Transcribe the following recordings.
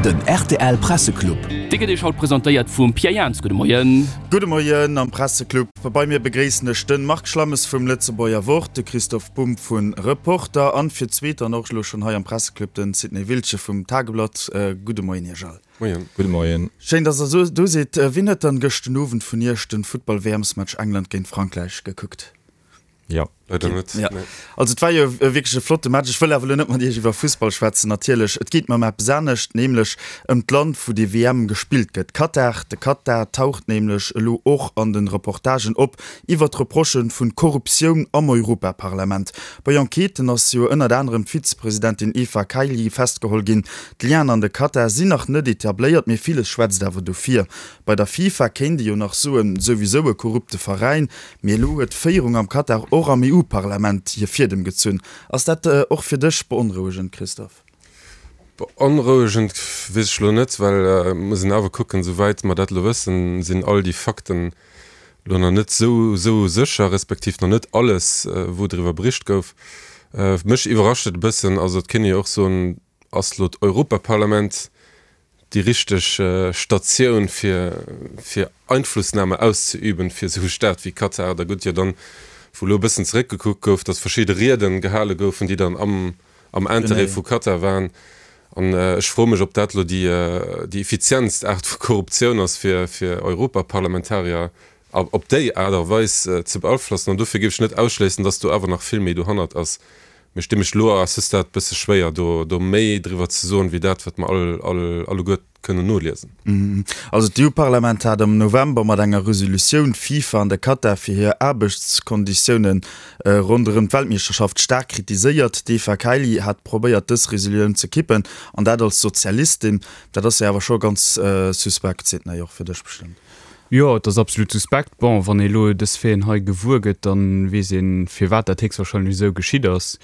Den rtl Presseclub. Dee gëtt Iech haut presentéiert vum Pierre Jans. Gudde Moien. Gudde Moien am Presseclub. Bei mir begréissen ech den Marc Schlammes vum Lëtzebuerger Wort, de Christoph Bumb vun Reporter an fir d'zweet dann och elo schonn hei am Presseclub den Sidney Wiltgen vum Tageblatt. Gudde Moien Iech all. Moien. Gudde Moien. Schéin, dass der do sidd. Wien huet dann gëscht den Owend vun Iech den Futtball-WMs-Match England géint Frankräich gekuckt? Jo. Leider net, Ja. nee. Also et war jo wierklech e flotte Match. Ech wëll awer elo net mat Iech iwwer Fussball schwätzen natierlech. Et geet mer ëm eppes anescht, nämlech ëm d'Land, wou déi WM gespillt gëtt, Katar. De Katar taucht nämlech elo och an de Reportagen op iwwer d'Reprochë vu Korruptioun am Europaparlament. Bei Enquêten ass jo ënnert anerem d'Vizepresidentin Eva Kaili festgeholl ginn. D'Lienen an de Katar sinn nach net etabléiert, mee villes schwätzt awer dofir. Bei der FIFA kéint ee jo nach soen, souwisou e korrupte Veräin, Mee elo huet d'Féierung am Katar och am EU-Parlament hir Fiedem gezunn. Ass dat och fir dech beonrouegend, Christophe? Beonrouegend weess ech elo net, well et muss een awer kucken, souwäit mer dat elo wëssen, sinn all déi Fakten elo nach net esou esou sécher, respektiv nach net alles, wou driwwer bericht gouf. Mech iwwerrascht et e bëssen, also et kéint ee jo och soen, ass elo d'Europaparlament déi richteg Statioun fir fir Einflussnahme auszeüben fir esou e Staat wéi Katar. Da gutt jo dann, wou elo e bëssen zeréckgekuckt gouf, datt verschidde Rieden gehale goufen, déi dann am am Interêt vu Katar waren. An ech froe mech, ob dat elo déi déi effizientst Aart vu Korruptioun ass fir fir Europaparlamentarier op déi Aart a Weis ze beaflossen. An dofir géif ech net ausschléissen, datt do awer nach vill méi dohannert ass. Mir sti mech elo à ce stade bësse schwéier, do do méi driwwer ze soen, wéi dat, wat mer all, all, alleguer kënnen noliesen. Also d'EU-Parlament hat am November mat enger Resolutioun d'FIFA an de Katar fir hir Aarbechtskonditioune ronderëm d'Weltmeeschterschaft staark kritiséiert. D'Eva Kaili hat probéiert dës Resolutioun ze kippen, an dat als Sozialistin. Dat ass jo awer scho ganz suspekt, Sidney, och fir dech bestëmmt. Jo, et ass absolut suspekt. Bon, wann ee elo dës Faiten hei gewuer gëtt, da weess een, firwat dat héchstwahrscheinlech esou geschitt ass.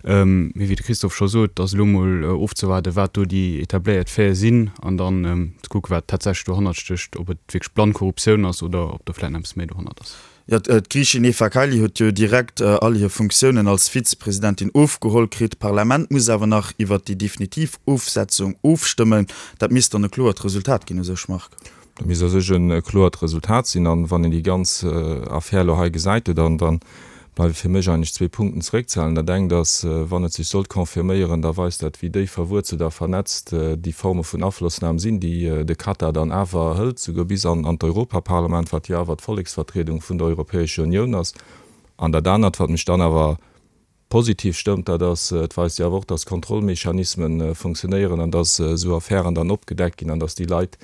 Mee wéi de Christophe scho sot, ass elo mol ofzewaarden, wat do déi etabléiert Faite sinn an dann ze kucken, wat tatsächlech dohannert stécht, ob et wierklech blann Korruptioun ass oder ob do vläicht nach eppes méi dohannert ass. Jo, d'Griichin Eva Kaili huet jo direkt all hir Funktiounen als Vizepresidentin ofgeholl kritt. D'Parlament muss awer nach iwwert déi definitiv Ofsetzung ofstëmmen. Dat misst dann e kloert Resultat ginn u sech, Marc. Dat misst a sech e kloert Resultat sinn. An wann een déi ganz Affär elo hei gesäit, dann da bleiwe fir mech eigentlech zwee Punkten zeréckzehalen. Dat engt ass, wann et sech sollt confirméieren, da weist dat, wéi déif verwuerzelt a vernetzt déi Forme vun Aflossnam sinn, déi de Katar dann awer hëlt, souguer bis an d'Europaparlament, wat jo awer d'Volleksvertriedung vun der Europäescher Unioun ass. An dat anert, wat mech dann awer Positiv stëmmt, dat ass, et weist jo awer och, dass Kontrollmechanismen funktionéieren an dass esou Affären dann opgedeckt ginn an dass déi Leit,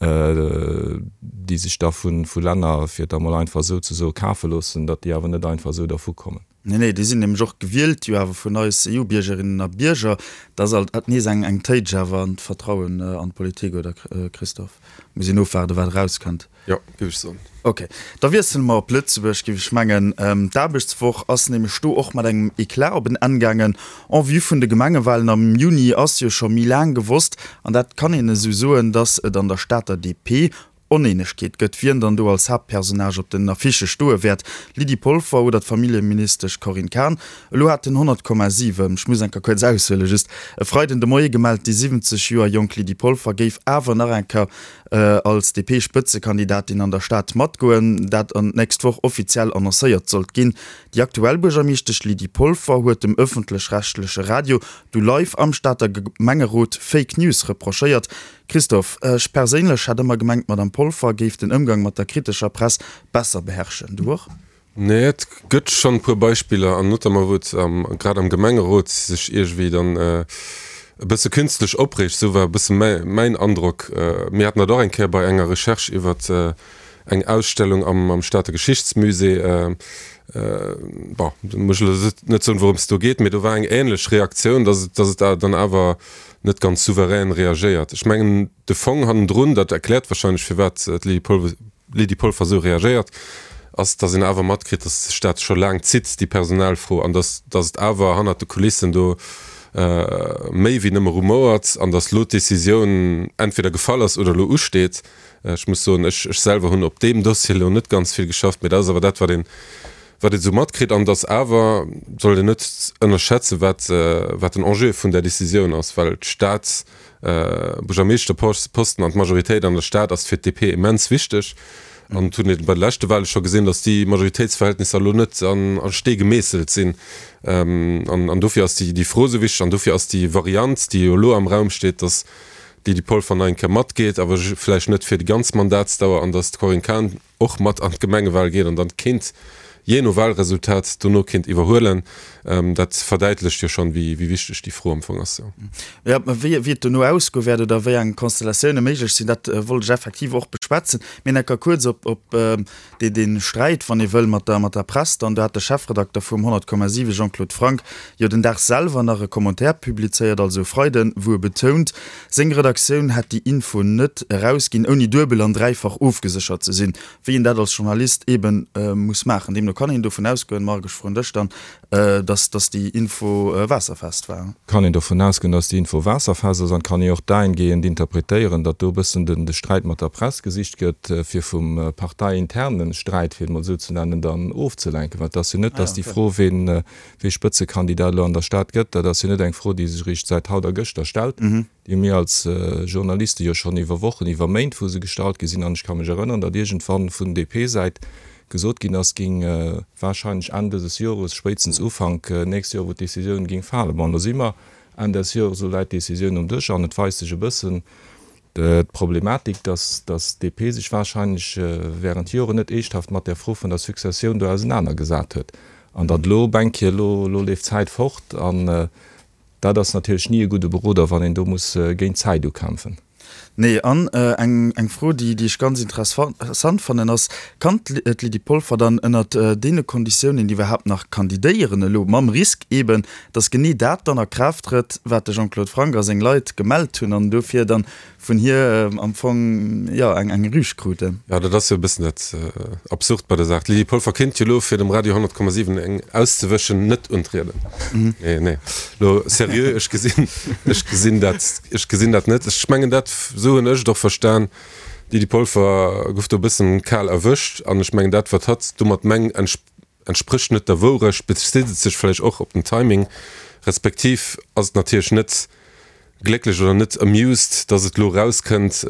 déi sech da vu Länner, fir et da mol einfach esou ze soen, kafe loossen, datt déi awer net einfach esou dervukommen. Nee, nee, déi sinn nämlech och gewielt jo awer vun eis EU-Biergerinnen a Bierger. Dat ass alt nees eng Téitsch awer an d'Vertrauen an d'Politik, oder Christophe? Muss een ofwaarden, wat erauskënnt. Jo, géif ech soen. Ok, da wiessele mer op Lëtzebuerg, géif ech mengen. D'Aarbechtswoch ass nämlech do och mat engem Eclat op en Enn gaangen. En vue vun de Gemengewalen am Juni ass jo scho méi laang gewosst, an dat kann een esou soen, datt et an der Stater DP Oneenegkeet gëtt, wien dann do als Haaptpersonnage op den Affichë stoe wäert, Lydie Polfer oder d'Familljeministesch Corinne Cahen. Elo hat den 100,7, ech muss eng Kéier kuerz aushuelen, just e Freiden de Moie gemellt, déi 70 Joer jonk Lydie Polfer géif awer nach eng Kéier als DP-Spëtzekandidatin an der Stad matgoen, dat an d'nächst Woch offiziell annoncéiert sollt ginn. Déi aktuell Buergermeeschtesch Lydie Polfer huet dem ëffentlech-rechtleche Radio du live am Stater Gemengerot Fake News reprochéiert. Christophe, ech perséinlech hat ëmmer gemengt, d'Madame Polfer géif den Ëmgang mat der kritescher Press besser beherrschen. Du och? Nee, et gëtt schonn e puer Beispiller, an notamment wou et grad am Gemengerot sech iergendwéi dann e bësse künstlech opreegt, esou war e bësse mäin Androck. Mir haten dat och eng Kéier bei enger Recherche iwwer eng Ausstellung am Stater Geschichtsmusée. Bon, do muss ech elo net soen, wourëms et do geet, mee do war eng änlech Reaktioun, dass et, dass et dann awer net ganz souverän reagéiert. Ech mengen, de Fong hannendrun, dat erkläert wahrscheinlech, firwat d'Lydie Polver, Lydie Polfer esou reagéiert, ass, datt een awer matkritt, datt sech dat scho laang zitt, déi Personalfro, an datt datt et awer hannert de Kulissen do méi wéi nëmme rumouert an datt elo d'Decisioun entweder gefall ass oder elo usteet. Ech muss soen, ech ech selwer hunn op deem Dossier elo net ganz vill geschafft, mee dat ass awer dat, wat een. wat een esou matkritt. An et ass awer, sollt een net ënnerschätzen, wat, wat den Enjeu vun där Décisioun ass, well d'Stad, Buergermeeschterposten an d'Majoritéit an der Stad ass fir d'DP immens wichteg. An et hunn ee bei de leschte Wahle scho gesinn, datt déi Majoritéitsverhältnisser elo net an a Stee gemeesselt sinn. An dofir ass déi Fro esou wichteg an dofir ass déi Variant, déi jo elo am Raum steet, datt d'Lydie Polfer nach eng Kéier matgeet, awer vläicht net fir déi ganz Mandatsdauer, an datt d'Corinne Cahen och mat an d'Gemengewal geet an dann kéint, jee no Walresultat, dono kéint iwwerhuelen, dat verdäitlecht jo schonn, wéi wichteg déi Fro am Fong ass. Jo, mä wéi et dono ausgoe wäert oder wéi eng Konstellatioune méiglech sinn, dat wollt ech effektiv och beschwätzen. Mir enker kuerz op dee Sträit, wann ee wëll, mat der Press dann. Do hat de Chefredakter vum 100,7 Jean-Claude Franck jo den Dag selwer nach e Commentaire publizéiert, also e Freiden, wou e betount, Seng Redaktioun hätt déi Info net erausginn, ouni duebel an dräifach ofgeséchert ze sinn, wéi een dat als Journalist eeben muss maachen. Deemno kann een dovun ausgoen, Marc, ech froen dech dann, dass dass déi Info waasserfest war. Kann een dovun ausgoen, dass déi Info waasserfest ass an et kann ee och dahingehend interpretéieren, datt do e bëssen den de Sträit mat der Press gesicht gëtt, fir vum parteiinterne Sträit, fir et mol esou ze nennen, dann ofzelenken. Well et ass jo net, dass déi Fro, ween Wee Spëtzekandidat elo an der Stad gëtt, dat ass jo net eng Fro, déi sech eréischt säit haut a gëschter stellt. Déi hu mir als Journaliste jo schonn iwwer Wochen, iwwer Méint, wou se gestallt gi sinn. An ech ka mech erënneren, datt iergendwann vun DP-Säit gesot ginn ass, géing warscheinlech Enn dëses Jores, spéitstens Ufank nächst Joer, wou d'Decisioun géing falen. Bon, elo si mer Enn des Jores, elo läit d'Decisioun um Dësch an et weist sech e bëssen, D'Problematik, dass d'DP sech wahrscheinlech während Joren net eeschthaft mat där Fro vun der Successioun do ausenanergesat huet an datt elo op eng Kéier, elo elo leeft d'Zäit fort an dat ass natierlech ni e gudde Beroder, wann een do muss géint d'Zäit ukämpfen. Nee, an eng eng Fro, déi déi ech ganz interessant fannen, ass, Kann d'Lydie Polfer dann ënnert deene Konditiounen iwwerhaapt nach kandidéieren elo, mam Risk eeben, dass genee dat dann a Kraaft trëtt, wat de Jean-Claude Franck a seng Leit gemellt hunn an dofir dann vun hir am Fong, jo, eng eng Rüg kruten. Jo, dat ass jo e bëssen dat Absurd bei der Saach. D'Lydie Polfer kéint jo elo, fir dem Radio 100,7 eng auszewëschen, net untrieden. Nee, nee, elo seriö, ech gesinn, ech gesinn dat, ech gesinn dat net. Ech mengen dat, esou hunn ech et och verstan, d'Lydie Polfer gouf do e bëssen kal erwëscht an ech mengen dat, wat hatt domat mengt, entsprécht net der Wourecht, bezitt et sech vläicht och op den Timing, respektiv ass et natierlech net glécklech oder net amused, datt et elo erauskënnt.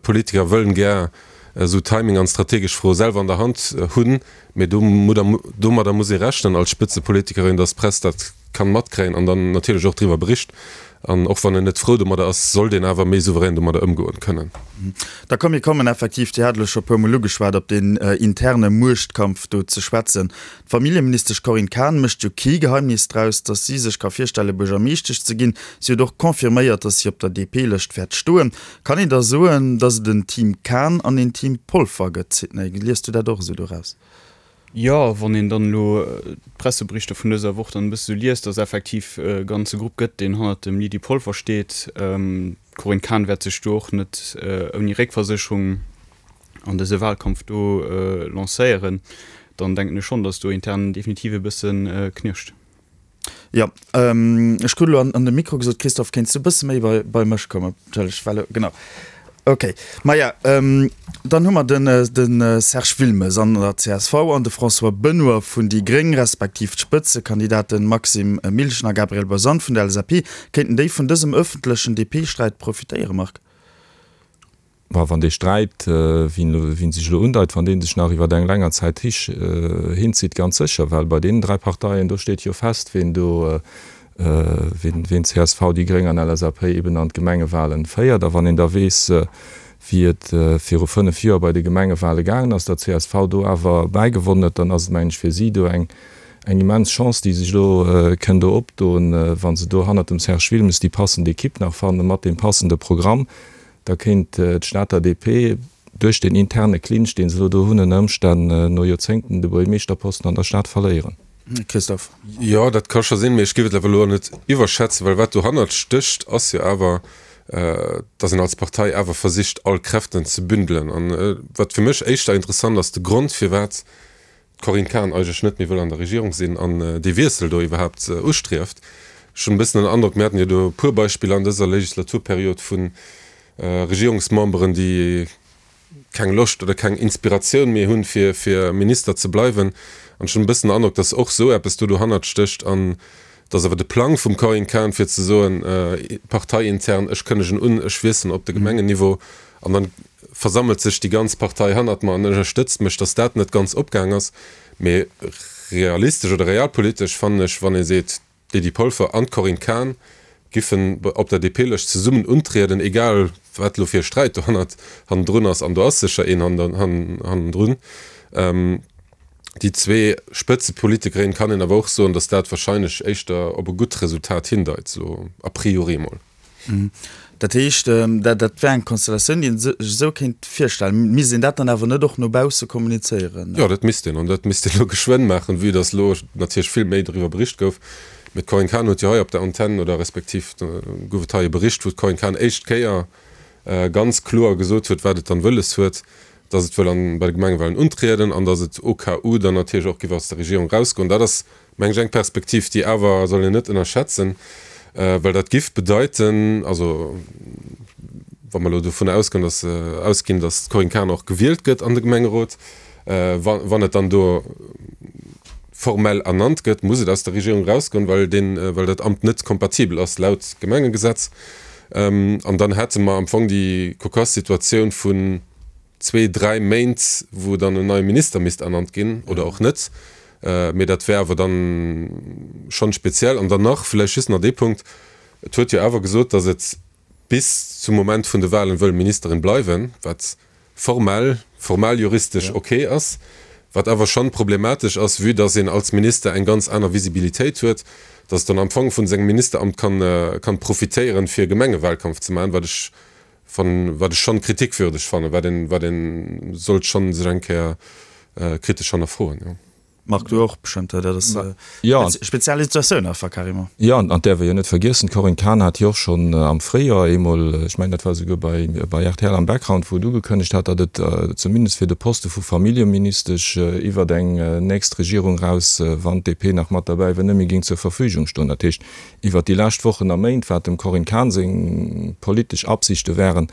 Politiker wëllen gär esou Timing an strategesch Froe selwer an der Hand hunn, mee domadder muss ee rechnen als Spëtzepolitikerin, datt d'Press dat kann matkréien an dann natierlech och driwwer bericht. An och wann en net frou domadder ass, sollt een awer méi souverän domadder ëmgoen kënnen. Da komm, mir kommen effektiv, Dir hat elo scho e puermol ugeschwat, op deen interne Muechtkampf do ze schwätzen. D'Familljeministesch Corinne Cahen mécht jo kee Geheimnis draus, datt si sech ka virstelle Buergermeeschtesch ze ginn. Si huet och confirméiert, datt si op der DP-Lëscht wäert stoen. Kann een da soen, datt et en Team Cahen an een Team Polfer gëtt? Sidney, liest du dat och esou doraus? Jo, wann een dann elo d'Presseberichter vun dëser Woch dann e bësse sou liest, dass effektiv e ganze Grupp gëtt, deen hannert dem Lydie Polfer steet. D'Corinne Cahen wäert sech do och net ouni Réckversécherung an dëse Wahlkampf do lancéieren. Dann denken ech schonn, dass do intern definitiv e bësse knirscht. Jo, ech krut elo an de Mikro gesot, Christophe, kéints du e bësse méi bei mech kommen? Entschëlleg, well, genau. Okay, maja, dann hu mer den de Serge Wilmes an der csv an de François Benoy vun déi gréng, respektiv d'Spëtzekandidaten Maxime Milchen a Gabriel Bosant vun der LSAP. Kéinten déi vun dësem ëffentlechen DP-Sträit profitéieren, Marc? Mä wann dee Sträit, wéi en sech elo undeit, wann dee sech nach iwwer eng länger Zäit hinzitt, ganz sécher, well bei deenen 3 Parteien, do steet jo fest, ween do, ween csv, déi gréng an LSAP eben an d'Gemengewahlen féiert. A wann een da weess, wéi et viru 5 Joer bei de Gemengewahlen gaangen ass, datt csv do awer bäigewonnen huet, dann ass et, mengen ech, fir si do eng immens Chance, déi sech elo kënn do opdoen, wa se do hannert dem Serge Wilmes déi passend Equipe nach fannen, mat deem passende Programm. Da kéint d'Stater DP duerch deen interne Clinch, deen se elo do hunn, ënner Ëmstänn no Joerzéngten de Buergermeeschterposten an der Stad verléieren. Christophe. Jo, dat ka scho sinn, mee ech géif et awer elo net iwwerschätzen, well wat dohannert stécht, ass jo awer, datt een als Partei awer versicht, all Kräften ze bündelen. An wat fir mech éischter interessant ass, de Grond, firwat d'Corinne Cahen eigentlech net méi wëll an der Regierung sinn an dee Wiessel do iwwerhaapt ustrieft. Ech hunn e bëssen den Androck, mir haten jo do e puer Beispiller an dëser Legislaturperiod vu Regierungsmemberen, déi keng Loscht oder keng Inspiratioun méi hunn, fir, fir Minister ze bleiwen. An ech hunn e bëssen den Androck, dass och esou eppes do dohannert stécht an dass awer de Plang vum Corinne Cahen, fir ze soen, parteiintern, ech kënnegen un, ech wiesselen op de Gemengenniveau an dann versammelt sech déi ganz Partei hannert mer an ënnerstëtzt mech, dass dat net ganz opgaang ass. Mee realistesch oder realpolitesch fannen ech, wann ee seet, d'Lydie Polfer an d'Corinne Cahen giffen op der DP-Lëscht zesummen untrieden, egal wat elo fir e Sträit dohannert hannendrun ass, an do ass sécher een hannendrun, déi zwee Spëtzepolitikerinnen, kann een awer och soen, datt dat wahrscheinlech éischter op e gutt Resultat hindeit, elo a priori emol. Dat heescht, dat wär eng Konstellatioun, déi ee sech esou kéint virstellen. Misst een dat dann awer net och no bausse kommunizéieren? Jo, dat misst een. An dat misst een elo geschwënn maachen, vue datt elo natierlech vill méi doriwwer bericht gouf. Mee d'Corinne Cahen huet jo hei op der Antenn, oder respektiv gouf et hei e Bericht, wou d'Corinne Cahen éischt Kéier ganz kloer gesot huet, wat et dann wëlles huet, datt et wëll an bei de Gemengewahlen untrieden an datt et au cas où dann natierlech och giff aus der Regierung erausgoen. Dat ass meng ech, eng Perspektiv, déi awer soll een net ënnerschätzen, well dat giff bedeiten, also wa mer elo dovun ausgoen, dass, ausginn, dass d'Corinne Cahen och gewielt gëtt an de Gemengerot, wa wann et dann do formell ernannt gëtt, muss et aus der Regierung erausgoen, well deen, well dat Amt net kompatibel ass laut Gemengegesetz. An dann hätte mer am Fong déi cocasse Situatioun vun, zwee, dräi Méint, wou dann en neie Minister misst ernannt ginn oder och net. Mee dat wär awer dann schonn speziell. An dann nach vläicht just nach dee Punkt, Et huet jo awer gesot, datt et bis zum Moment vun de Wahlen wëll Ministerin bleiwen, wat formell, formal juristesch ok ass, wat awer schonn problematesch ass, vue datt een als Minister eng ganz aner Visibilitéit huet, datt et dann am Fong vun sengem Ministeramt kann, kann profitéieren, fir Gemengewahlkampf ze maachen, wat ech Fannen, wat ech schonn kritikwürdeg fannen, wat een, wat een sollt schonn sech eng Kéier kritesch hannerfroen, jo. Marc, du och bestëmmt, dat ass speziell Situatioun einfach carrément. Jo, an däerf ee jo net vergiessen, d'Corinne Cahen hat jo och schonn am Fréijoer eemol, ech mengen dat war esouguer bei, bei rtl am Background, wou et ugekënnegt hat, datt et zumindest fir de Poste vu Familljeministesch iwwert eng nächst Regierung raus, wann d'DP nach mat derbäi wär, net méi géing zur Verfügung stoen. Dat heescht, Iwwert déi lescht Wochen a Méint, wat dem Corinne Cahen seng politesch Absichte waren,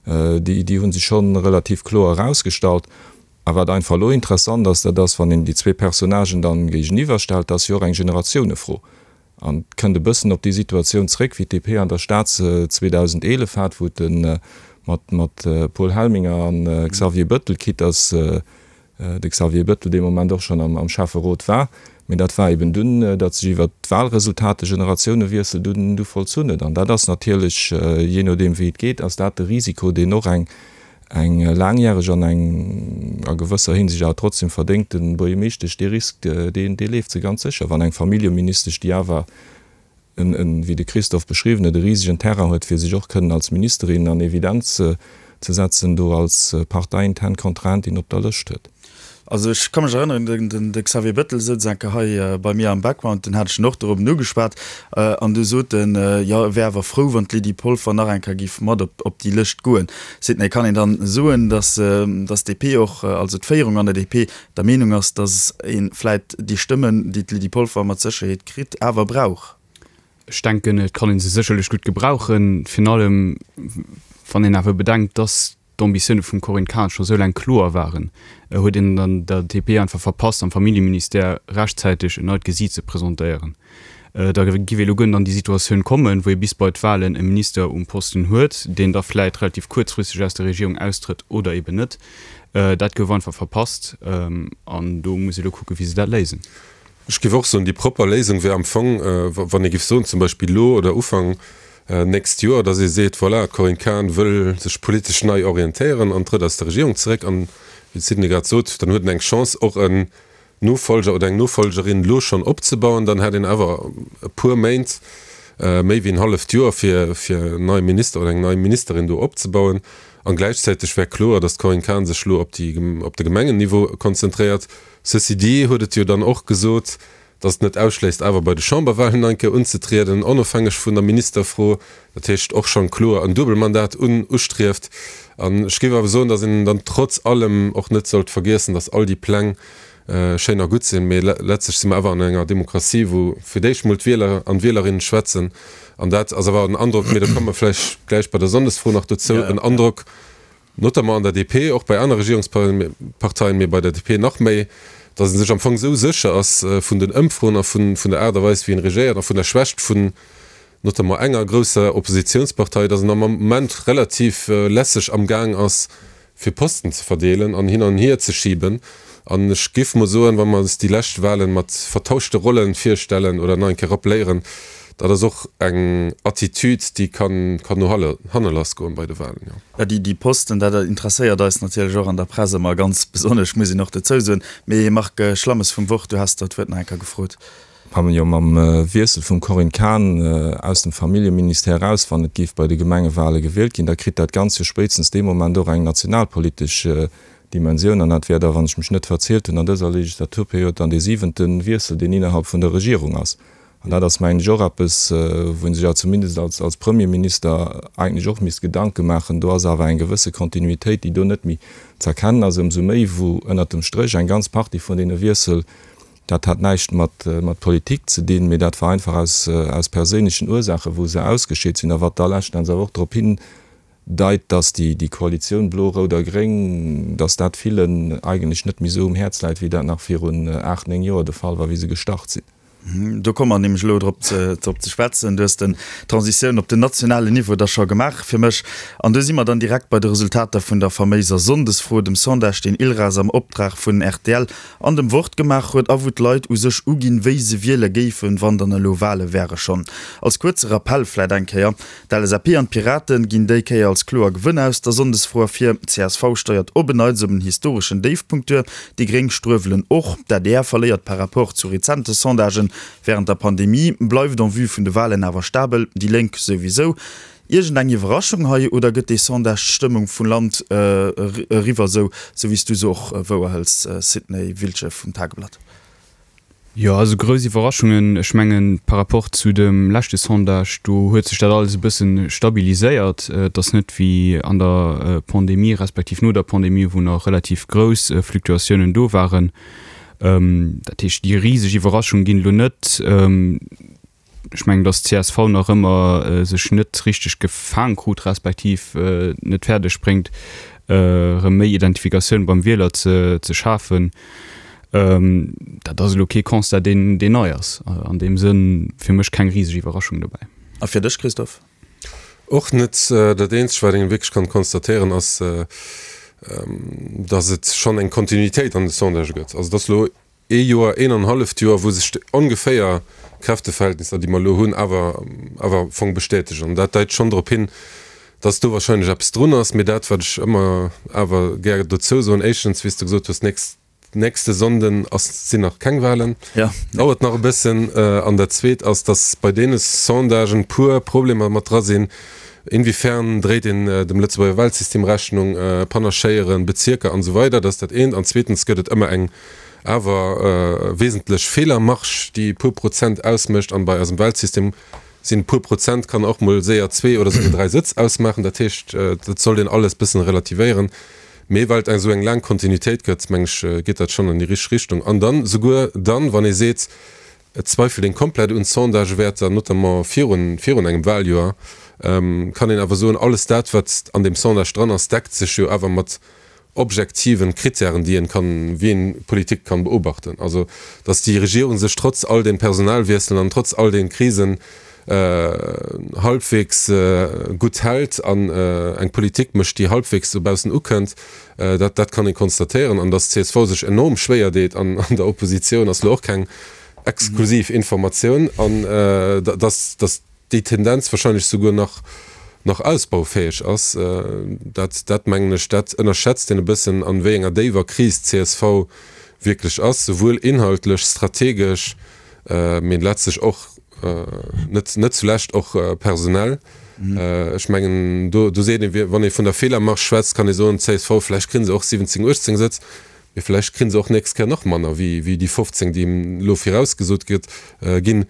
déi déi hu sech scho relativ kloer erausgestallt. A wat einfach elo interessant ass, dat ass, wann een déi zwee Personnagen dann géigeniwwer stellt, dat ass jo och eng Generatiounefro. An et kënnt e bëssen op déi Situatioun zréck, wéi d'DP an der Stad se 2011 hat, wou et mat mat Paul Helminger an Xavier Bëttel, quitte dass de Xavier Bettel dee Moment och schonn am Schäfferot war, mee dat war eben dunn, datt sech iwwert d'Wahlresultat de Generatiounewiessel dunn du vollzunn huet. An dat ass natierlech, jee nodeem wéi et geet, ass dat de Risiko, deen och eng eng laangjäreg an eng a gewësser Hinsicht awer trotzdem verdéngte Buergermeeschtesch, dee Risk, deen dee leeft se ganz sécher, wann eng Familljeministesch, déi awer en, en, wéi de Christophe beschriwwen huet, e risegen Terrain huet, fir sech och kënnen als Ministerin an Evidenz ze setzen, do als parteiintern Kontrahentin op der Lëscht huet. Also ech ka mech erënneren, den, den, de Xavier Bettel souz eng Kéier hei bei mir am Background, den hat ech en och dorobben ugeschwat, an du sot en, jo, e wär awer frou, wann d'Lydie Polfer nach eng Kéier giff mat op, op déi Lëscht goen. Seet en, et kann een dann soen, datt, datt d'DP och, also d'Féierung an der DP, der Meenung ass, datt ee vläit déi Stëmmen, déi d'Lydie Polfer mat Sécherheet kritt, awer brauch. Ech denken, et kann ee se sécherlech gutt gebrauchen, virun allem wann een awer bedenkt, datt d'Ambitioune vum Corinne Cahen scho sou laang kloer waren, huet een an der DP einfach verpasst, am Familljeministère rechtzäiteg en neit Gesiit ze presentéieren. Da giff ee lo guer net an déi Situatioun kommen, wou ee bis bei d'Wahlen e Minister um Posten huet, deen da vläit relativ kuerzfristeg aus der Regierung austrëtt oder eben net. Dat gouf einfach verpasst an do muss ee lo kucken, wéi se dat léisen. Ech géif och soen, déi propper Léisung wär am Fong, wann ee géif soen, zum Beispill elo oder Ufank nächst Joer, datt ee seet, voilà, d'Corinne Cahen wëll sech politesch nei orientéieren an trëtt aus der Regierung zeréck an, wéi de Sidney grad sot, dann huet en eng Chance och en Nofolger oder eng Nofolgerin elo schonn opzebauen, dann hätt een awer e puer Méint, méi wéi en halleft Joer, fir fir en neie Minister oder eng nei Ministerin do opzebauen. An gläichzäiteg wär kloer, datt d'Corinne Cahen sech elo op déi, op de Gemengenniveau konzentréiert. Ceci dit huet et jo dann och gesot, datt et net ausschléisst, awer bei de Chamberwahlen nach eng Kéier unzetrieden, onofhängeg vun der Ministerfro. Dat heescht och schonn kloer en Duebelmandat un ustrieft. An ech géif awer soen, datt een dann trotz allem och net sollt vergiessen, datt all déi Pläng schéin a gutt sinn, mee letztlech si mer awer an enger Demokratie, wou fir d'éischt mol d'Wieler an d'Wielerinnen schwätzen. An dat ass awer en Androck, mee do komme mer vläicht gläich bei der Sonndesfro nach dozou, en Androck. Notamment an der DP, och bei aner Regierungsparteien, mee bei der DP nach méi, datt ee sech am Fong esou sécher ass vun den Ëmfroen a vun der Aart a Weis, wéi een regéiert a vun der Schwächt vun notamment enger grousser Oppositionspartei, datt en am Moment relativ lässeg amgaang ass, fir Posten ze verdeelen an hin an hier ze schiben. An ech géif mol soen, wa mer eis déi lescht Wahlen mat vertauschte Rollen virstellen oder nach eng Kéier rappeléieren, dat ass och eng Attitude, déi kann no hanne lassgoen bei de Wahlen, jo. Jo, déi Posten, dat interesséiert eis natierlech och an der Press ëmmer ganz besonnesch, muss een och dozou soen. Mee Marc Schlammes vum Wort, du has der d'Wuert nach eng Kéier gefrot. Jo, mam Wiessel vum Corinne Cahen aus dem Familljeministère eraus, wann et géif bei de Gemengewale gewielt ginn, da kritt dat Ganzt jo spéitstens dee Moment och eng nationalpolitesch Dimensioun. An dat wär da, wann ech mech net verzielt hunn, an dëser Legislaturperiod dann dee siwente Wiessel, deen innerhalb vun der Regierung ass. An dat ass, mengen ech, och eppes, wou ee sech awer zumindest als Premierminister eigentlech och misst Gedanke maachen. Do ass awer eng gewësse Kontinuitéit, déi do net méi z'erkennen ass, ëmsou méi wou ënnert dem Stréch eng ganz Partie vun deene Wiessel, Dat hat näischt mat Politik ze dinn, mee dat war einfach aus perséinlechen Ursaachen, wou se ausgescheet sinn a wat da leschten Enns awer och drop hindeit, datt déi Koalitioun blo, rout a gréng, datt dat villen eigentlech net méi esou um Häerz läit, wéi dat nach virun 8, 9 Joer de Fall war, wéi se gestart sinn. Do komme mer nämlech elo drop ze schwätzen. Du hues den d'Transitioun op den nationalen Niveau da scho gemaach fir mech. An do si mer dann direkt bei de Resultater vun der faméiser Sonndesfro, dem Sondage, deen ILRAS am Optrag vun rtl an dem Wort gemaach huet a wou d'Leit u sech uginn, wéi se wiele géifen, wann dann elo Wale wäre. Schonn als kuerze Rappell vläit eng Kéier, D'LSAP an d'Piraten ginn déi Kéier als kloer Gewënner aus der Sonndesfro ervir, csv steiert op en Neits op en historeschen Déifpunkt duer, déi Gréng struewelen och, d'ADR verléiert par rapport zu rezente Sondagen wärend der Pandemie, bleift en vue vun de Walen awer stabel, déi Lénk souwisou. Iergend eng Iwwerraschung hei oder gëtt dee Sondage d'Stëmmung vum Land eriwwer, sou wéi s du se och wouerhëls, Sidney Wiltgen vum Tageblatt? Jo, also grouss Iwwerraschungen, ech mengen par rapport zu dem leschte Sondage, do huet sech dat alles e bësse stabiliséiert. Et ass net wéi an der Pandemie respektiv no der Pandemie, wou nach relativ grouss Fluktuatiounen do waren. Dat heescht, déi riseg Iwwerraschung ginn elo net. Ech mengen, datt csv nach ëmmer sech net richteg gefaang krut, respektiv net fäerdeg bréngt, erëm méi Identifikatioun beim Wieler ze schafen. Dat ass elo kee Constat, deen nei ass. An deem Sënn fir mech keng riseg Iwwerraschung dobäi. A fir dech, Christophe? Och net. Dat eenzegt, wat een wierklech kann konstatéieren, ass, datt et schonn eng Kontinuitéit an de Sondagë gëtt. Also, et ass elo ee Joer, een an halleft Joer, wou sech ongeféier d'Kräfteverhältnisser, déi mer elo hunn, awer awer am Fong bestätegen. An dat deit schonn drop hin, dass do wahrscheinlech eppes drun ass. Mee dat, wat ech ëmmer awer gär dozou soen, éischtens, wéi s de gesot hues, nächst, nächste Sonnden ass, sinn nach keng Wahlen, dauert nach e bëssen. An dat Zweet ass, dass bei deene Sondagen puer Problemer mat dra sinn, Inwiefern dréit een dem Lëtzebuerger Wahlsystem Rechnung, Panachéieren, Bezierker an esou weider. Dat ass dat eent. An zweetens gëtt et ëmmer eng awer wesentlech Feelermarge, déi e puer Prozent ausmécht, an bei eisem Wahlsystem sinn e puer Prozent kann och mol séier zwee oder souguer dräi Sëtz ausmaachen. Dat heescht, dat sollt een alles bëssen relativéieren. Mee well et esou eng laang Kontinuitéit gëtt, meng ech, geet dat schonn an déi richteg Richtung. An dann, souguer dann, wann ee seet, et zweifelt een komplett un Sondagewäerter, notamment virun, virun engem Wahljoer, kann een awer soen, alles dat, wat an deem Sondage dran ass, deckt sech jo awer mat objektiven Kritären, déi een kann, wéi een Politik kann beobachten. Also, dass déi Regierung sech trotz all den Personalwiesselen an trotz all den Krisen halbwegs gutt hält an eng Politik mécht, déi halbwegs dobaussen ukënnt, dat, dat kann ee konstatéieren. An dass csv sech enorm schwéier deet an der Oppositioun, ass elo och keng exklusiv Informatioun. An dass, dass déi Tendenz wahrscheinlech souguer nach nach ausbaufäeg ass, dat dat mengen ech, dat ënnerschätzt een e bëssen, an wéi enger déiwer Kris d'CSV wierklech ass, souwuel inhaltlech, strategesch, mee letztlech och, net net zulescht och personell. Ech mengen, do do seet een, wann ee vun der Feelermarge schwätzt, kann ee soen, d'CSV, vläicht kréie se och 17, 18 Sëtz, mee vläicht kréie se och nächst Kéier nach manner wéi wéi déi 15, déi elo virausgesot gëtt ginn.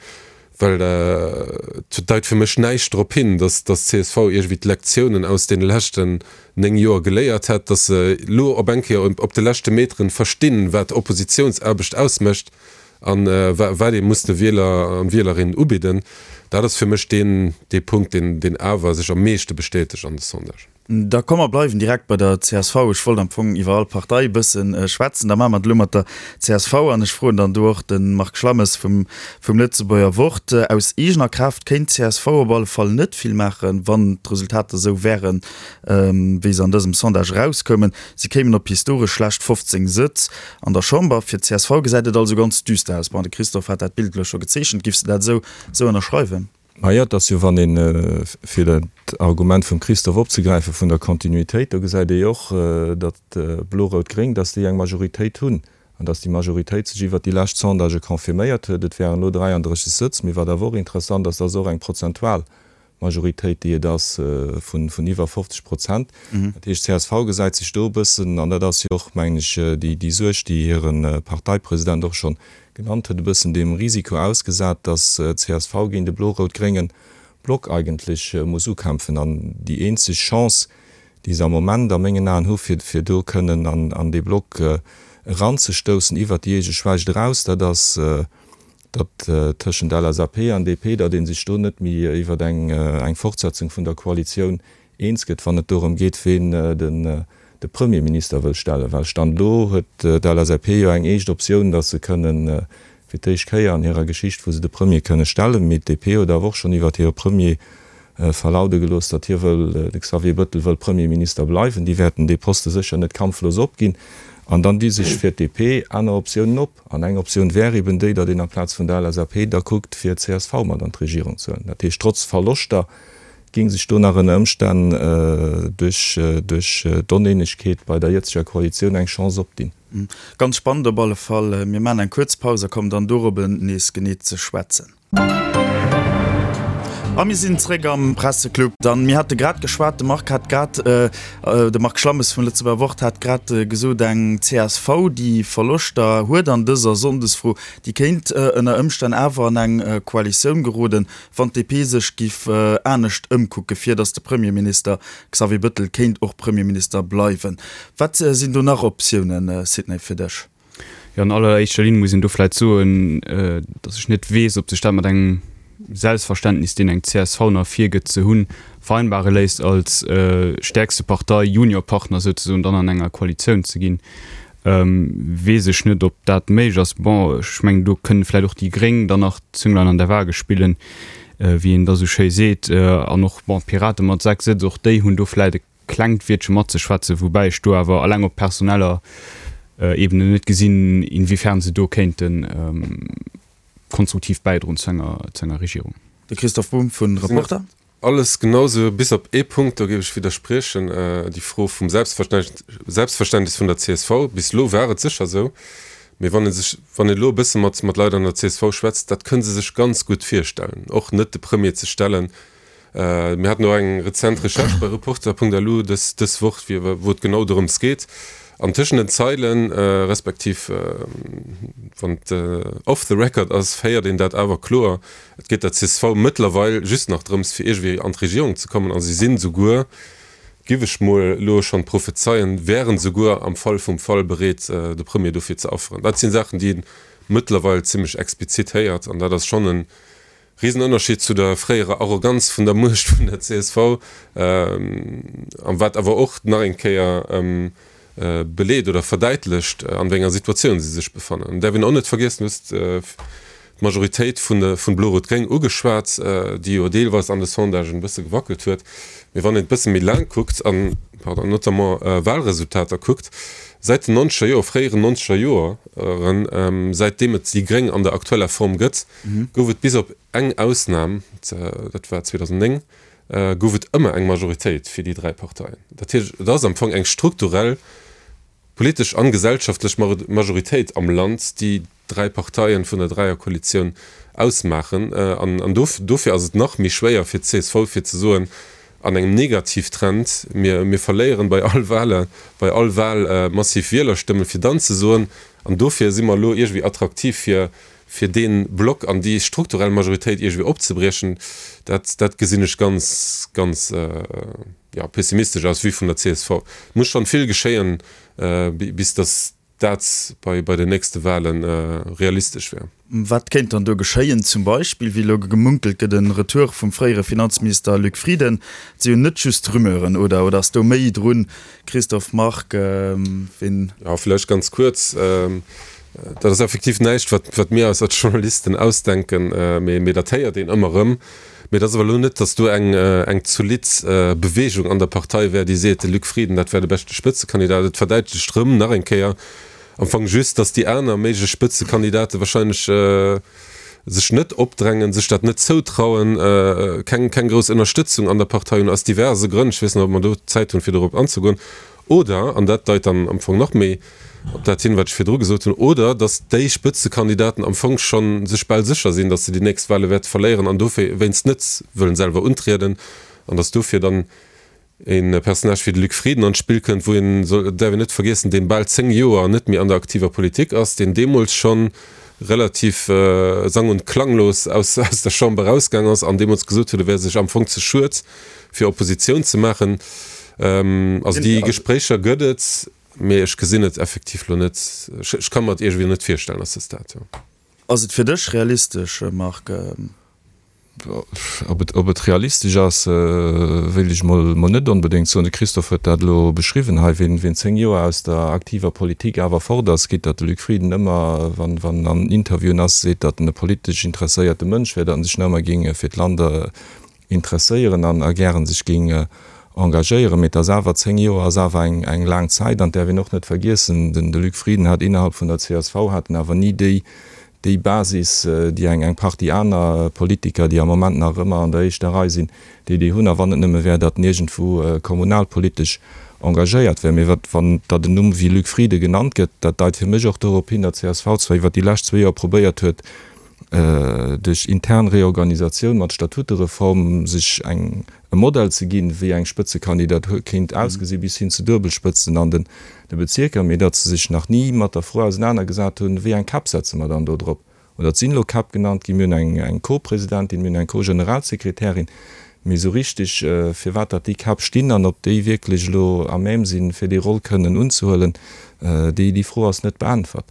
Well et deit fir mech näischt drop hin, datt d'CSV iergendwéi d'Lektiounen aus deene leschten 9 Joer geléiert hätt, datt se elo op eng Kéier op de leschte Meteren verstinn, wat Oppositiounsaarbecht ausmécht a wat ee muss de Wieler an Wielerinnen ubidden. Dat ass fir mech deen dee Punkt, deen awer sech am meeschte bestätegt an de Sondagen. Da komm mer bleiwen direkt bei der csv. Ech wollt am Fong iwwer all Partei e bësse schwätzen. Da maache mer et elo mat der csv an ech froen dann do och de Marc Schlammes vum Lëtzebuerger Wort. Aus eegener Kraaft kéint d'CSV op alle Fall net vill maachen, wann d'Resultater esou wären, wéi se an dësem Sondage erauskoumen. Si kéimen op historesch schlecht 15 Sëtz an der Chamber. Fir d'CSV gesäit et also ganz düster aus. Bon, de Christophe hat dat Bild elo scho gezeechent. Giffs de dat esou ënnerschreiwen? Majo, et ass jo, wann een, fir dat Argument vum Christophe opzegräifen, vun der Kontinuitéit, do gesäit ee jo och, datt Blo-Rout-Gréng, datt déi eng Majoritéit hunn an datt déi Majoritéit sech iwwert déi lescht Sondagë confirméiert huet. Et wären elo 33 Sëtz, mee wat awer och interessant ass, dat ass och eng prozentual Majoritéit, déi et ass vun iwwer 50 Prozent. Dat heescht, csv gesäit sech do e bëssen, an dat ass jo och, mengen ech, déi Suerg, déi hire Parteipresident och schonn Genannt huet, e bëssen dem Risiko ausgesat, datt csv géint e blo-rout-grénge Block eigentlech muss ukämpfen. An déi eenzeg Chance, déi se am Moment a mengen Aen hu fir fir do kënnen an dee Block eranzestoussen iwwert déi eege Schwächt eraus, dat ass, datt tëschent LSAP an DP, datt ee sech do net méi iwwert eng Fortsetzung vun der Koalitioun eens gëtt, wann et dorëm geet, ween de Premierminister wëll stellen. Well Stand elo huet d'LSAP jo eng éischt Optioun, datt se kënnen, fir d'éischt Kéier an hirer Geschicht, wou se de Premier kënne stellen. Mee d'DP huet awer och schonn iwwert hire Premier verlaude gelooss, datt hie wëll, de Xavier Bëttel wëll Premierminister bleiwen. Déi wäerten dee Poste sécher net kampflos opginn. An dann di sech fir d'DP aner Optiounen op. An eng Optioun wär eben déi, datt een amplaz vun der LSAP da kuckt, fir csv mat an d'Regierung ze huelen. Dat heescht, trotz Verloschter Géing sech do nach ënner Ëmstänn duerch duerch d'Oneenegkeet bei der jëtzeger Koalitioun eng Chance opdinn? Ganz spannend op alle Fall. Mir maachen eng kuerz Paus a kommen dann dorobben nees genee ze schwätzen. A mir sinn zréck am Presseclub. Dann, mir hate grad geschwat, de Marc hat grad, de Marc Schlammes vum Lëtzebuerger Wort hat grad gesot, eng csv, déi Verloschter huet an dëser Sonndesfro, déi kéint ënner Ëmstänn awer an eng Koalitioun geroden. Wann d'DP sech giff anescht ëmkucke fir datt de Premierminister Xavier Bëttel kéint och Premierminister bleiwen. Wat sinn do nach Optiounen, Sidney, fir dech? Jo, an alleréischter Linn muss een do vläit soen, datt ech net weess, ob sech dat mat engem Selbstverständnis, deen eng csv nach virgëtt ze hunn, vereinbare léisst, als stäerkste Partei Juniorpartner souzesoen dann an enger Koalitioun ze ginn. Weess ech net, ob dat méiglech ass. Bon, ech mengen, do kënnen vläicht och déi Gréng dann nach d'Zünglein an der Waage spillen, wéi een da sou schéi seet. An och, bon, d'Pirate mat 6 Sëtz, och déi hunn do vläicht e klengt Wiertche matzeschwätzen, woubäi ech do awer alleng op personeller Ebene net gesinn, inwiefern se do kéinte konstruktiv bäidroen zu enger Regierung. De Christoph Bumb vun Reporter. Alles genau sou, bis op ee Punkt, do géif ech widderspriechen, déi Fro vum Selbstverständnis vun der csv. Bis elo war et sécher sou, mee wann ee sech, wann een elo e bësse mat mat Leit an der csv schwätzt, dat kënne se sech ganz gutt virstellen, och net de Premier ze stellen. Mir haten och eng rezent Recherche bei Reporter.lu dës dës Woch, wou et genau dorëms geet. An tëschent den Zeilen, respektiv wann et off the record ass, héiert een dat awer kloer, Et geet der csv mëttlerweil just nach drëms, fir iergendwéi an d'Regierung ze kommen a si sinn souguer, giff ech mol elo schonn prophezeien, wären souguer am Fall vum Fall bereet, de Premier dofir ze afferen. Dat sinn Saachen, déi ee mëttlerweil zimmlech explizit héiert an dat ass schonn e Risenënnerscheed zu der fréierer Arroganz vun der Muecht vun der csv a wat awer och nach eng Kéier beleet oder verdäitlecht, an wéi enger Situatioun si sech befannen. An däerf een och net vergiessen, du hues d'Majoritéit vun vun Blo-Rot-Gréng ugeschwat, déi jo deelweis an de Sondagen e bësse gewackelt huet. Mee wann een et bësse méi laang kuckt an, pardon, notamment Wahlresultater kuckt, säit den nonzeger Joer, fréieren nonzeger Joeren, säitdeem et déi Gréng an der aktueller Form gëtt, gouf et bis op eng Ausnam, dat war 2009, gouf et ëmmer eng Majoritéit fir déi 3 Parteien. Dat heescht, et ass am Fong eng strukturell politesch an gesellschaftlech Majoritéit am Land, déi dräi Parteien vun der Dräierkoalitioun ausmaachen. An dofir ass et nach méi schwéier fir d'CSV fir ze soen, an engem Negativtrend, mir mir verléieren bei all Wahle, bei all Wahl massiv Wielerstëmmen, fir dann ze soen, an dofir si mer elo iergendwéi attraktiv fir fir dee Block an déi strukturell Majoritéit iergendwéi opzebriechen, dat, dat gesinn ech ganz, ganz, jo, pessimistesch aus Vue vun der csv. Et muss schonn vill geschéien, bis datt. dat bei bei den nächste Wahlen realistesch wär. Wat kéint dann do geschéien? Zum Beispill, wéi elo gemunkelt gëtt, en Retour vum fréiere Finanzminister Luc Frieden. Et si jo net just Rumeuren, oder? Oder ass do méi drun? Christophe Margue, ween. Jo, vläicht ganz kuerz. Dat ass effektiv näischt, wat wat mir eis als Journalisten ausdenken, mee mee dat héiert een ëmmer erëm. Mee et ass awer elo net, datt do eng eng zolidd Beweegung an der Partei wär, déi seet, de Luc Frieden, dat wär de beschte Spëtzekandidat. Et verdäitlecht erëm nach eng Kéier am Fong just, datt déi aner méiglech Spëtzekandidate wahrscheinlech sech net opdrängen, sech dat net zoutrauen, keng keng grouss Ënnerstëtzung an der Partei hunn, aus diverse Grënn. Ech weess net, ob mer do Zäit hunn, fir dorop anzegoen. Oder, an dat deit dann am Fong nach méi op dat hin, wat ech virdru gesot hunn, oder datt déi Spëtzekandidaten am Fong scho sech bal sécher sinn, datt se déi nächst Wahle wäerte verléieren an dowéinst net wëllen selwer untrieden an datt dofir dann e Personnage wéi de Luc Frieden an d'Spill kënnt, wou een, dat däerf een net vergiessen, dee bal 10 Joer net méi an der aktiver Politik ass, deen deemools scho relativ sang und klanglos aus der Chamber erausgaang ass an deemools gesot huet, e wär sech am Fong ze schued, fir Oppositioun ze maachen. Also déi Gespréicher gëtt et, mee ech gesinn et effektiv lo net, ech ka mer et iergendwéi net virstellen à ce stade, jo. Ass et fir dech realistesch, Marc? Ob et, ob et realistesch ass, wéilt ech mol mol net onbedéngt soen. De Christophe huet dat elo beschriwwen hei, wien, wien 10 Joer aus der aktiver Politik awer fort ass, quitte datt de Luc Frieden ëmmer, wann, wann en an Interviewen ass, seet, datt en e politesch interesséierte Mënsch wär, datt en sech nach ëmmer géing fir d'Land interesséieren an a gären sech géing engagéieren. Mee et ass awer, 10 Joer ass awer eng, eng laang Zäit an et däerf een och net vergiessen, den, de Luc Frieden hat innerhalb vun der csv hat en awer ni déi, déi Basis, déi eng eng Partie aner Politiker, déi am Moment nach ëmmer an der éischter Rei sinn, déi déi hunn, a wann et nëmme wär, datt en iergendwou kommunalpolitesch engagéiert wär. Mee wat, wann datt en Numm wéi Luc Frieden genannt gëtt, dat deit fir mech och dorop hin, datt csv zwar iwwert déi lescht zwee Joer probéiert huet, duerch intern Reorganisatioun mat Statutereform sech eng e Modell ze ginn, wéi eng Spëtzekandidatur kéint ausgesinn, bis hin zu Duebelspëtzen an den Bezierker, mee datt se sech nach ni mat der Fro ausenanergesat hunn, wéi eng Käpp setze mer dann do drop. Oder et sinn elo Käpp genannt ginn, mir hunn eng Co-Presidentin, mir hunn eng Co-Generalsekretärin, mee esou richtig, firwat datt déi Käpp stinn an ob déi wierklech elo à même sinn, fir déi Roll kënnen unzehuelen, déi Fro ass net beäntwert.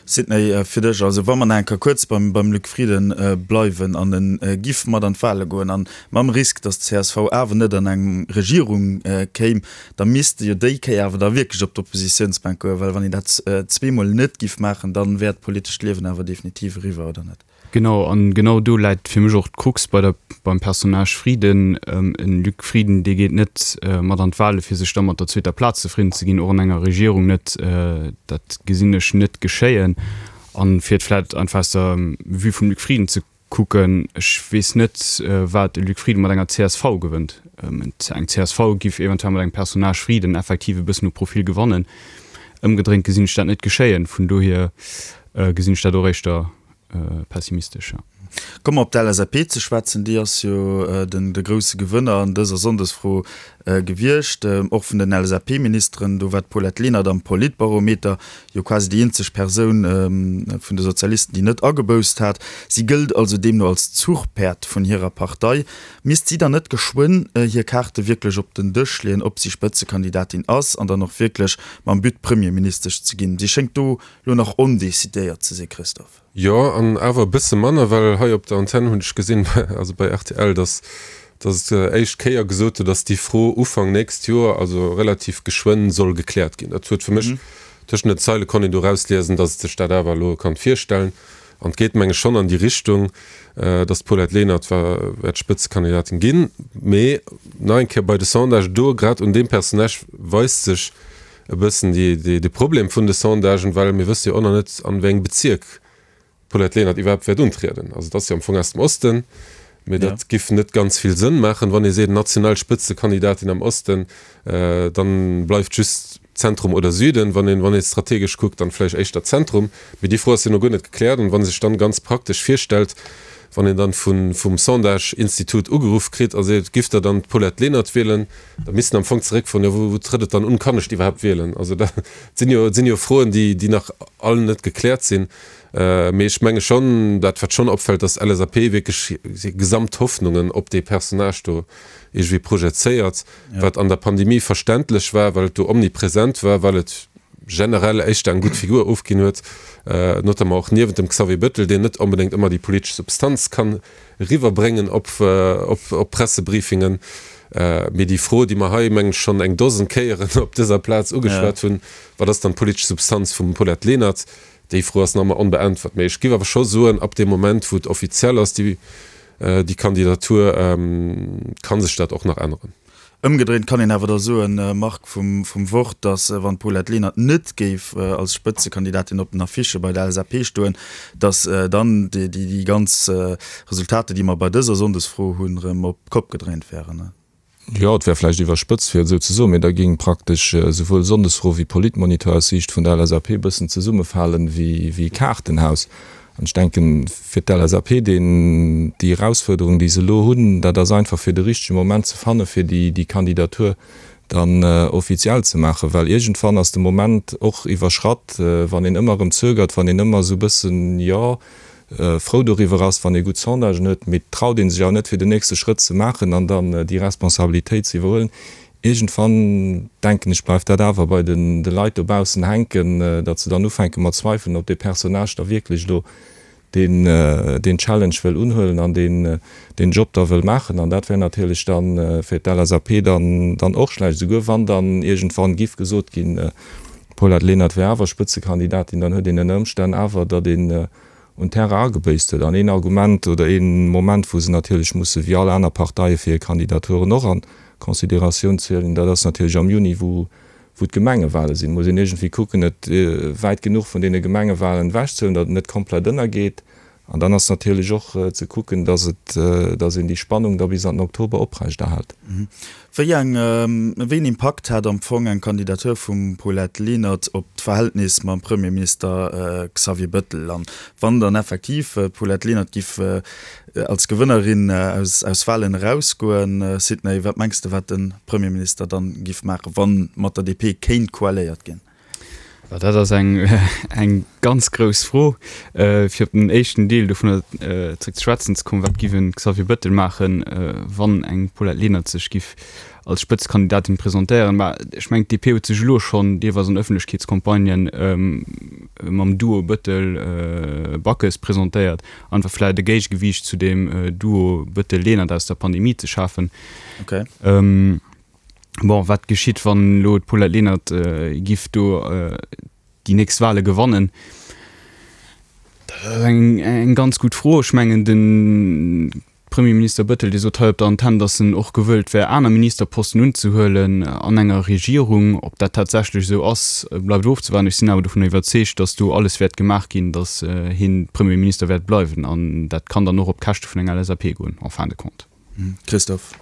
Sidney, fir dech, also wa mer nach eng Kéier kuerz beim beim Luc Frieden bleiwen an e giff mat an d'Wahle goen an mam Risk, datt d'CSV awer net an eng Regierung kéim, da misst e jo déi Kéier awer da wierklech op d'Oppositiounsbänk goen, well wann een dat zweemol net giff maachen, dann wär d'politescht Liewen awer definitiv eriwwer, oder net? Genau, an genau do läit fir mech och d'Krux bei der, beim Personnage Frieden. En Luc Frieden, dee geet net mat an d'Wahle fir sech da mat der zweeter Plaz zefridden ze ginn, och an enger Regierung net. Dat gesinn ech net geschéien. An fir et vläit einfach aus der Vue vum Luc Frieden ze kucken, ech weess net, wat e Luc Frieden mat enger csv gewënnt. Eng csv giff eventuell mat engem Personnage Frieden effektiv e bëssen u Profil gewannen. Ëmgedréint gesinn ech dat net geschéien. Vun dohier gesinn ech dat och éischter pessimistesch, jo. Komme mer op d'LSAP ze schwätzen. Déi ass jo den de grousse Gewënner an dëser Sonndesfro gewiescht. Och vun den LSAP-Ministeren, do war d'Paulette Lenert am Politbarometer jo quasi déi eenzeg Persoun vun de Sozialisten, déi net agebousst hat. Si gëllt also deemno als Zuchpäerd vun hirer Partei. Misst si dann net geschwënn hir Kaarte wierklech op den Dësch leeën, ob si Spëtzekandidatin ass an dann och wierklech mam But Premierministesch ze ginn? Si schéngt do lo nach ondecidéiert ze si, Christophe. Jo, an awer e bësse manner, well hei op der Antenn hunn ech gesinn, also bei rtl, datt datt et éischt Kéier gesot huet, datt déi Fro Ufank nächst Joer, also relativ geschwënn, soll gekläert ginn. Dat huet fir mech, tëschent den Zeile konnt een do erausliesen, datt et sech dat awer elo kann virstellen. An et geet, meng ech, schonn an déi Richtung, datt d'Paulette Lenert wäert Spëtzekandidatin ginn. Mee nach eng Kéier bei de Sondagen, do grad un deem Personnage weist sech, e bëssen de Problem vun de Sondagen, well mir wësse jo och nach net, an wéi engem Bezierk d'Paulette Lenert iwwerhaapt wäert untrieden. Also et ass jo am Fong aus dem Osten, mee dat giff net ganz vill Sënn maachen, wann ee seet national Spëtzekandidatin am Osten, dann bleift just Zentrum oder Süden. Wann een wann ee strategesch kuckt, dann vläicht éischter Zentrum. Mee déi Fro ass jo no guer net gekläert. An wa sech dann ganz praktesch virstellt, wann een dann vum Sondage-Institut ugeruff kritt a seet, Giff Der dann d'Paulette Lenert wielen? Da misst en am Fong zeréckfroen, jo wou trëtt et dann un, kann ech iwwerhaapt wielen? Also dat sinn jo, sinn jo Froen, déi, déi nach all net gekläert sinn. Mee ech menge schonn, dat wat schonn opfält, datt d'LSAP wierklech hir gesamt Hoffnungen op dee Personnage do iergendwéi projezéiert, wat an der Pandemie verständlech war, well et do omnipresent war, well et. generell éischter eng gutt Figur ofginn huet, notamment och niewent dem Xavier Bettel, deen net onbedéngt ëmmer déi politesch Substanz kann eriwwerbréngen op op Pressebriefingen. Mee déi Fro, déi mer hei, mengen ech, schonn eng Dosen Kéieren op dëser Plaz ugeschwat hunn, Wat ass dann d'politesch Substanz vum Paulette Lenert? Déi Fro ass nach ëmmer onbeäntwert. Mee ech géif awer scho soen, ab deem Moment, wou et offiziell ass, déi Kandidatur, ka sech dat och nach änneren. Ëmgedréint kann een awer da soen, Marc, vum Wort, datt wann d'Paulette Lenert net géif als Spëtzekandidatin op den Affichë bei der LSAP stoen, datt dann déi ganz Resultater, déi mer bei dëser Sonndesfro hunn, erëm op d'Kopp gedréint wären. Jo, et wär vläicht iwwerspëtzt, fir et esou ze soen, mee da géing praktesch esouwuel Sonndesfro wéi Politmonitor aus Siicht vun der LSAP e bëssen zesummefalen wéi e Kaartenhaus. An ech denken, fir d'LSAP, deen, déi Erausfuerderung, déi se elo hunn, dat ass einfach fir de richtege Moment ze fanne fir déi, déi Kandidatur dann offiziell ze maachen. Well iergendwann ass de Moment och iwwerschratt, wann een ëmmer erëm zögert, wann een ëmmer esou e bëssen, jo, frou doriwwer ass, wann ee gutt Sondagen huet, mee et traut ee sech awer net fir den nächste Schrëtt ze maachen an dann déi Responsabilitéit ze iwwerhuelen. Iergendwann, denken ech, bleift dat awer bei de Leit dobaussen hänken, datt se dann ufänke mat zweifelen, ob dee Personnage da wierklech elo deen Challenge wëll unhuelen an deen Job da wëll maachen. An dat wär natierlech da fir d'LSAP dann och schlecht, esouguer wann dann iergendwann giff gesot ginn, d'Paulette Lenert wär awer Spëtzekandidatin, dann huet een ënner Ëmstänn awer, datt een un Terrain agebéisst huet. An een Argument oder ee Moment, wou se natierlech musse wéi all aner Parteie fir hir Kandidaturen och a Consideratioun zielen, dat ass natierlech am Juni, wou wou d'Gemengewale sinn. Muss een iergendwéi kucken, et wäit genuch vun deene Gemengewalen ewechzehalen, datt et net komplett ënnergeet. An dann ass natierlech och ze kucken, datt et, datt een déi Spannung da bis an den Oktober oprechterhält. Wéi eng, wéi een Impakt hat am Fong eng Kandidatur vum Paulette Lenert op d'Verhältnis mam Premierminister Xavier Bettel? An wann dann effektiv d'Paulette Lenert giff als Gewënnerin aus aus Wahlen erausgoen, Sidney, wat mengs de wat de Premierminister dann giff maachen, wann mat der DP kéint koaléiert ginn? Dat ass eng eng ganz grouss Fro. Fir op den éischten Deel dovunner zréck ze schwätzen ze kommen, Wat giff en Xavier Bettel maachen, wann eng Paulette Lenert sech giff als Spëtzekandidatin presentéieren? Mä ech mengen, d'DP huet sech elo schonn deelweis an Ëffentlechkeetscampagnen mam Duo Bettel-Backes presentéiert, einfach vläicht e Géigegewiicht zu deem Duo Bettel-Lenert aus der Pandemie ze schafen. Bon, wat geschitt, wann elo d'Paulette Lenert giff do déi nächst Wahle gewannen? Dat ass eng, eng ganz gutt Fro. Ech mengen, de Premierminister Bettel, dee sot hei op der Antenn, datt en och gewëllt wär, aner Ministerposten unzehuelen an enger Regierung. Ob dat tatsächlech esou ass, bleift ofzewaarden. Ech sinn awer dovun iwwerzeegt, datt do alles wäert gemaach ginn, datt hien Premierminister wäert bleiwen. An dat kann dann och op Käschte vun enger LSAP goen, en fin de compte. Christophe.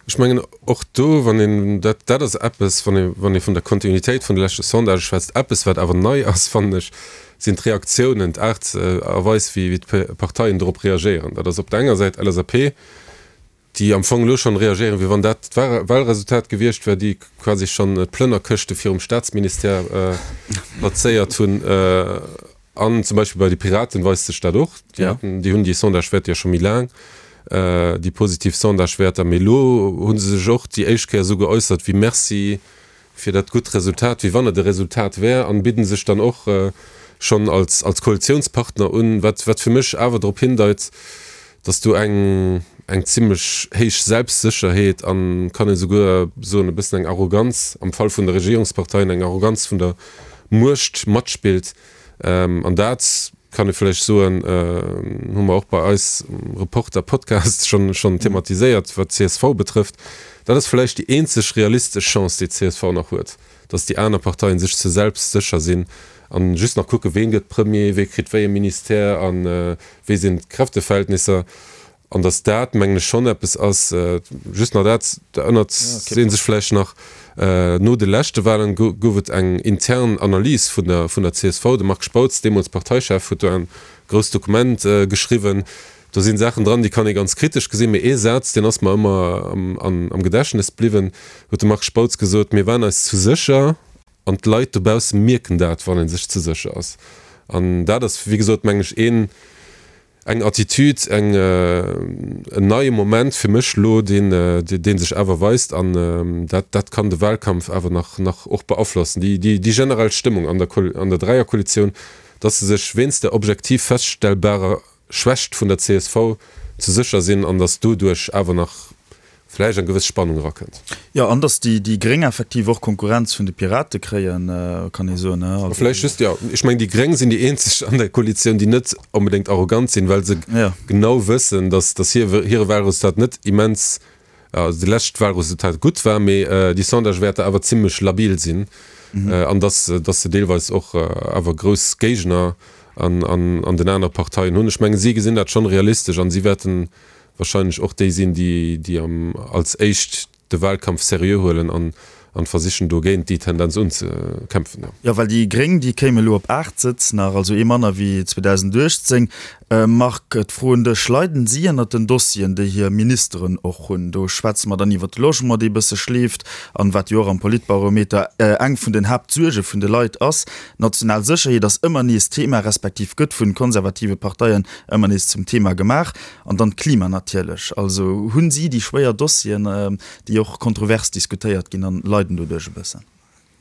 Ech mengen och do, wann een, dat, dat ass eppes, wann ee, wann ee vun der Kontinuitéit vun de leschte Sondagë schwätzt, eppes wat awer nei ass, fannen ech, sinn d'Reaktiounen, d'Aart a Weis wéi, wéi d'Parteien dorop reagéieren. Dat ass op der enger Säit LSAP, déi am Fong elo schonn reagéieren, wéi wann dat d'Wahlresultat gewiescht wär, déi quasi schonn d'Plënnerkëschte virum Staatsministère plazéiert hunn. An zum Beispill bei de Piraten weist sech dat och. Déi haten, déi hunn déi Sondagewäerter jo scho méi laang, déi positiv Sondagewäerter. Mee elo hu se sech och déi éischt Kéier esou geäussert wéi Merci fir dat gutt Resultat, wéi wann et e Resultat wär, an bidden sech dann och schonn als als Koalitiounspartner un, wat wat fir mech awer drop hindeit, datt do eng eng zimlech héich Selbstsécherheet an, kann een esouguer soen, e bëssen eng Arroganz, am Fall vun de Regierungsparteien eng Arroganz vun der Muecht matspillt. An dat, kann ee vläicht soen, hu mer och bei eis am Reporter-Podcast schonn, schonn thematiséiert, wat d'CSV betrëfft. Dat ass vläicht déi eenzeg realistesch Chance, déi d'CSV nach huet, datt déi aner Parteien sech ze selbstsécher sinn an just nach kucken, ween gëtt Premier, wee kritt wéi e Ministère a wéi sinn d'Kräfteverhältnisser. An datt dat, mengen ech, schonn eppes ass, just nach dat, da ënnert ee sech vläicht nach, no de leschte Wahlen gouf et eng intern Analys vun der vun der csv. De Marc Spautz, deemools Parteichef, huet do en grousst Dokument geschriwwen. Do sinn Saachen dran, déi kann ee ganz kritesch gesinn, mee ee Saz, deen ass mer ëmmer am Gedächtnes bliwwen, huet de Marc Spautz gesot, Mir waren eis zu sécher an d'Leit dobausse mierken dat, wann ee sech ze sécher ass. An dat ass, wéi gesot, mengen ech, een. Eng Attitude, eng, en neie Moment fir mech elo, deen, dee sech awer weist an dat, dat kann de Wahlkampf awer nach, nach och beaflossen. Déi, déi, déi generell Stëmmung an der, an der Dräierkoalitioun, dass se sech wéinst der objektiv feststellbarer Schwächt vun der csv ze sécher sinn an dass doduerch awer nach vläicht eng gewëss Spannung erakënnt. Jo, an datt déi Gréng effektiv och Konkurrenz vun de Pirate kréien, kann ee soen. A vläicht just, jo, ech mengen, déi Gréng sinn déi eenzeg an der Koalitioun, déi net onbedéngt arrogant sinn, well se genau wëssen, datt hire Wahlresultat net immens, also de lescht Wahlresultat gutt war, mee déi Sondagewäerter awer zimlech labil sinn an datt se deelweis och awer grouss Géigner an den anere Parteien hunn. Ech mengen, si gesinn dat schonn realistesch an si wäerten wahrscheinlech och déi sinn, déi als éischt de Wahlkampf seriö huelen an versichen do géint déi Tendenz unzekämpfen. Jo, well déi Gréng, déi kéime elo op 8 Sëtz nach, also ee manner wéi 2018. Marc, d'Fro un dech, Leiden si ënnert den Dossieren, déi hir Ministeren och hunn? Do schwätze mer dann iwwert de Logement, dee bësse schleeft an wat jo och am Politbarometer eng vun den Haaptsuerge vun de Leit ass. D'national Sécherheet ass ëmmer nees Thema, respektiv gëtt vun konservative Parteien ëmmer nees zum Thema gemaach. An dann d'Klima natierlech. Also hunn si déi schwéier Dossieren, déi och kontrovers diskutéiert ginn an leiden doduerch e bëssen.